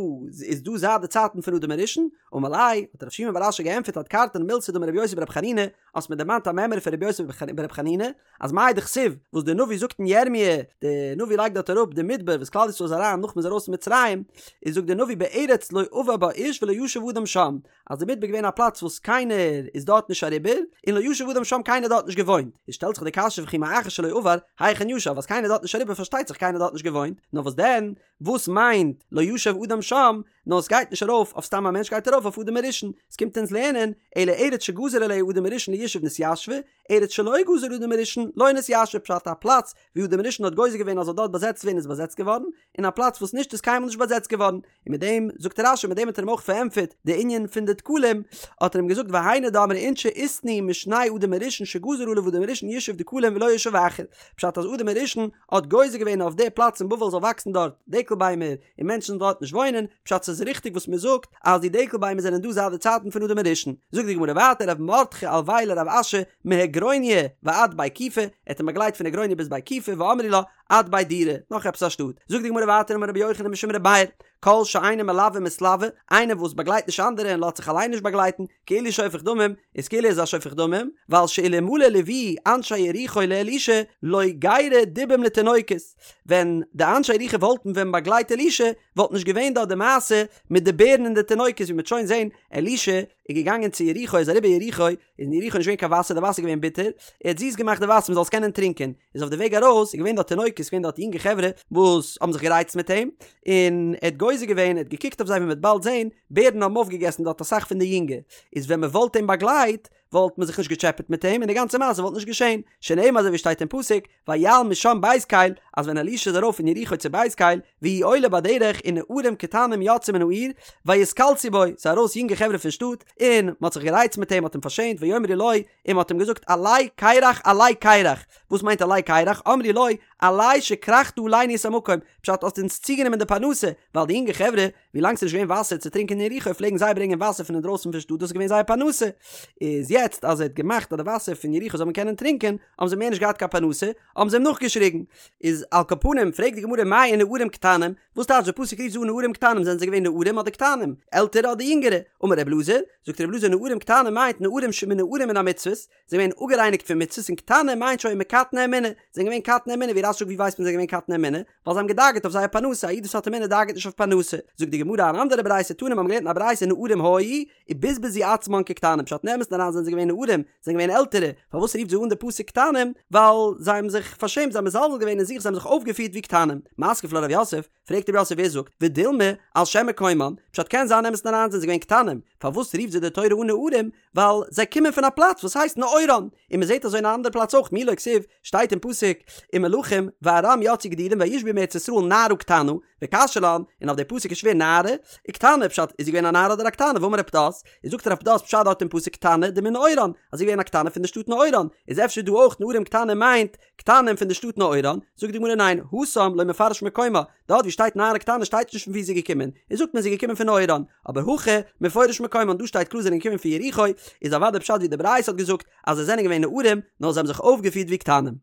איז דא זייט די צייטן פון אדם הראשון? אמר ליה, האט רב שימי בר אשי געענטפערט אדכרתן מילתא דאמר רבי יוסי ברבי חנינא, האסט מיר דערמאנט א מימרא פון רבי יוסי ברבי חנינא, אז מאי דכתיב, וואס דער נביא זאגט אין ירמיה, דער נביא לייגט דארט אראפ די מדבר וואס כלל ישראל איז אריין נאך מ'איז ארויס פון מצרים, איז זאגט דער נביא בארץ לא עבר בה איש ולא ישב אדם שם, אז די מדבר איז געווען א פלאץ וואס קיינער איז דארט נישט אריבער, און לא ישב אדם שם קיינער האט דארט נישט געוואוינט, איז שטעלט זיך די קשיא וכי מאחר שלא עבר, היכן ישב, אז קיינער איז דארט נישט אריבער פארשטייט זיך קיינער האט דארט נישט געוואוינט, נאר וואס דען, וואס מיינט לא ישב אדם שם, נאר עס גייט נישט ארויף אויף סתם א מענטש גייט ארויף אויף אדם הראשון, עס קומט אונז לערנען, אלא ארץ שגזר עליה אדם הראשון לישוב נתיישבה, ארץ שלא גזר אדם הראשון לא נתיישבה פשט א פלאץ ווי אדם הראשון האט גוזר געווען אז זאל דארט באזעצט ווערן איז באזעצט געווארן, און א פלאץ וואס נישט איז קיינמאל נישט באזעצט געווארן, און מיט דעם זאגט רש"י מיט דעם האט ער אים אויך פארענטפערט די ענין פון די. דקלים, האט ער אים געזאגט והיינו דאמרי אינשי איתנהו משני אדם הראשון שגזר עליו אדם הראשון ישוב דקלים ולא ישוב אחר, פשט אז אדם הראשון האט גוזר געווען אויף די פלאץ אין בבל זאל וואקסן דארט דקל ביימער און מענטשן זאלן דארט נישט וואוינען, פשט ס'איז ריכטיג וואס מ'זאגט אז די דקל ביימער זענען דא זייט די צייטן פון אדם הראשון. זאגט די גמרא ווייטער רב מרדכי אלויה לרב אשי מהגרוניא ועד בי כיפי, ער האט אים באגלייט פון הגרוניא ביז בי כיפי ואמרי לה עד בי דורא, נאך עפעס א שטאט. זאגט די גמרא ווייטער אמר רבי יוחנן משום רבי מאיר, כל שאינו מלוה ומתלוה, איינער וואס באגלייט נישט אנדערע און לאזט זיך אליין נישט באגלייטן, כאילו שופך דמים, איז כאילו ער איז א שופך דמים, ווייל שאלמלא ליוו אנשי יריחו לאלישע לא גיירו דובים לתינוקות, ווען די אנשי יריחו וואלטן ווען באגלייט אלישע, וואלט נישט געווען דארט די מעשה מיט די בערן און די תינוקות, ווי מ'וועט שוין זען, אלישע איז געגאנגען צו יריחו, איז אריבער יריחו, איז אין יריחו נישט געווען קיין וואסער, די וואסער איז געווען ביטער, ער האט זיס געמאכט די וואסער מ'זאל עס קענען טרינקען, איז אויף די וועג ארויס איז געווען דארט תינוקות, איז געווען דארט יונגע חברה וואס האבן זיך גערייצט מיט אים, און ער האט גוזר געווען, ער האט געקוקט אויף זיי ווי מ'וועט באלד זען, בערן האבן אויפגעגעסן דארט אסאך פון די יונגע, איז ווען מ'וואלט אים באגלייט, וואלט מען זיך נישט געטשעפעט מיט אים און די גאנצע מעשה וואלט נישט געשען, שנאמר אזוי ווי שטייט אין פסוק, ויעל משם בית קל, אז ווען אלישע איז ארויף פון יריחו צו בית קל, והוא עולה בדרך ונערים קטנים יצאו מן העיר, ויתקלסו בו, ס'איז ארויס יונגע חברה פון שטאט, און מ'האט זיך גערייצט מיט אים, מ'האט אים פארשעמט, ויאמרו לו, און מ'האט אים געזאגט עלה קרח עלה קרח, וואס מיינט עלה קרח, אמרו לו, עלה שכרכת עלינו את המקום, פשט האסט אונז צוגענומען די פרנסה, ווייל די יונגע חברה, ווי לאנג ס'איז נישט געווען וואסער צו טרינקען אין יריחו פלעגן זיי ברענגען וואסער פון אינדרויסן פון שטאט דאס איז געווען זייער פרנסה, איז יעצט אז ער האט געמאכט אז די וואסער פון יריחו זאל מען קענען טרינקען, האבן זיי מער נישט געהאט קיין פרנסה, האבן זיי אים נאכגעשריגן. איז על כל פנים פרעגט די גמרא מאי ונערים קטנים, וואס טייטש די פסוק רופט זיי אן נערים קטנים זענען זיי געווען נערים אדער קטנים, עלטערע אדער יונגערע, אמר ר' אלעזר, זאגט ר' אלעזר נערים קטנים מיינט נערים שמנוערים מן המצוות, זיי זענען געווען אפגערייניגט פון מצוות און קטנים מיינט שהיו מקטני אמונה, זיי זענען געווען קטני אמונה, ווי רש"י זאגט ווי ווייסט מען זיי זענען געווען קטני אמונה? ווייל זיי האבן געדאגה'ט אויף זייער פרנסה, א איד וואס האט אמונה דאגה'ט נישט אויף פרנסה. זאגט די גמרא אן אנדערע ברייתא תנא מיר האבן געלערנט אין א ברייתא נערים היו ובזבזו עצמן כקטנים פשט אין אמת'ן אריין זענען זיי געווען נערים, זיי זענען געווען עלטערע, פארוואס רופט זיי אן די פסוק קטנים? ווייל זיי האבן זיך פארשעמט זיי האבן מזלזל געווען אין זיך זיי האבן זיך אויפגעפירט ווי קטנים. מתקיף לה רב יוסף, פרעגט רב יוסף ווער זאגט ודילמא על שם מקומן, פשט קען זיין אין אמת'ן אריין זענען זיי געווען קטנים, פארוואס רופט זיי די תורה אן נערים? ווייל זיי קומען פון א פלאץ וואס הייסט נעורן, און מען זעט אזוי אין א אנדערע פלאץ אויך מי לא כתיב, שטייט אין פסוק אין מלכים וארם יצאו גדודים וישבו מארץ ישראל נערה קטנה, וקשיא לן, און אויף די פסוק איז שווער נערה וקטנה, פשט איז זי געווען א נערה אדער א קטנה, והאמר רב פדת, איז זאגט רב פדת פשט דארט אין פסוק קטנה דמנעורן, אז זי איז געווען א קטנה פון די שטאט נעורן, איז אפשר דא אויך נערים קטנים מיינט קטנים פון די שטאט נעורן, זאגט די גמרא ניין, התם לא מפרש מקומה, דארט ווי שטייט נערה קטנה שטייט נישט פון ווי זי איז געקומען, איז זאגט מען זי איז געקומען פון נעורן, אבער הכא מפורש מקומן דא שטייט קלאר זיי זענען געקומען פון יריחו, איז אוודאי פשט ווי די ברייתא האט געזאגט אז זיי זענען געווען נערים, נאר זיי האבן זיך אויפגעפירט ווי קטנים.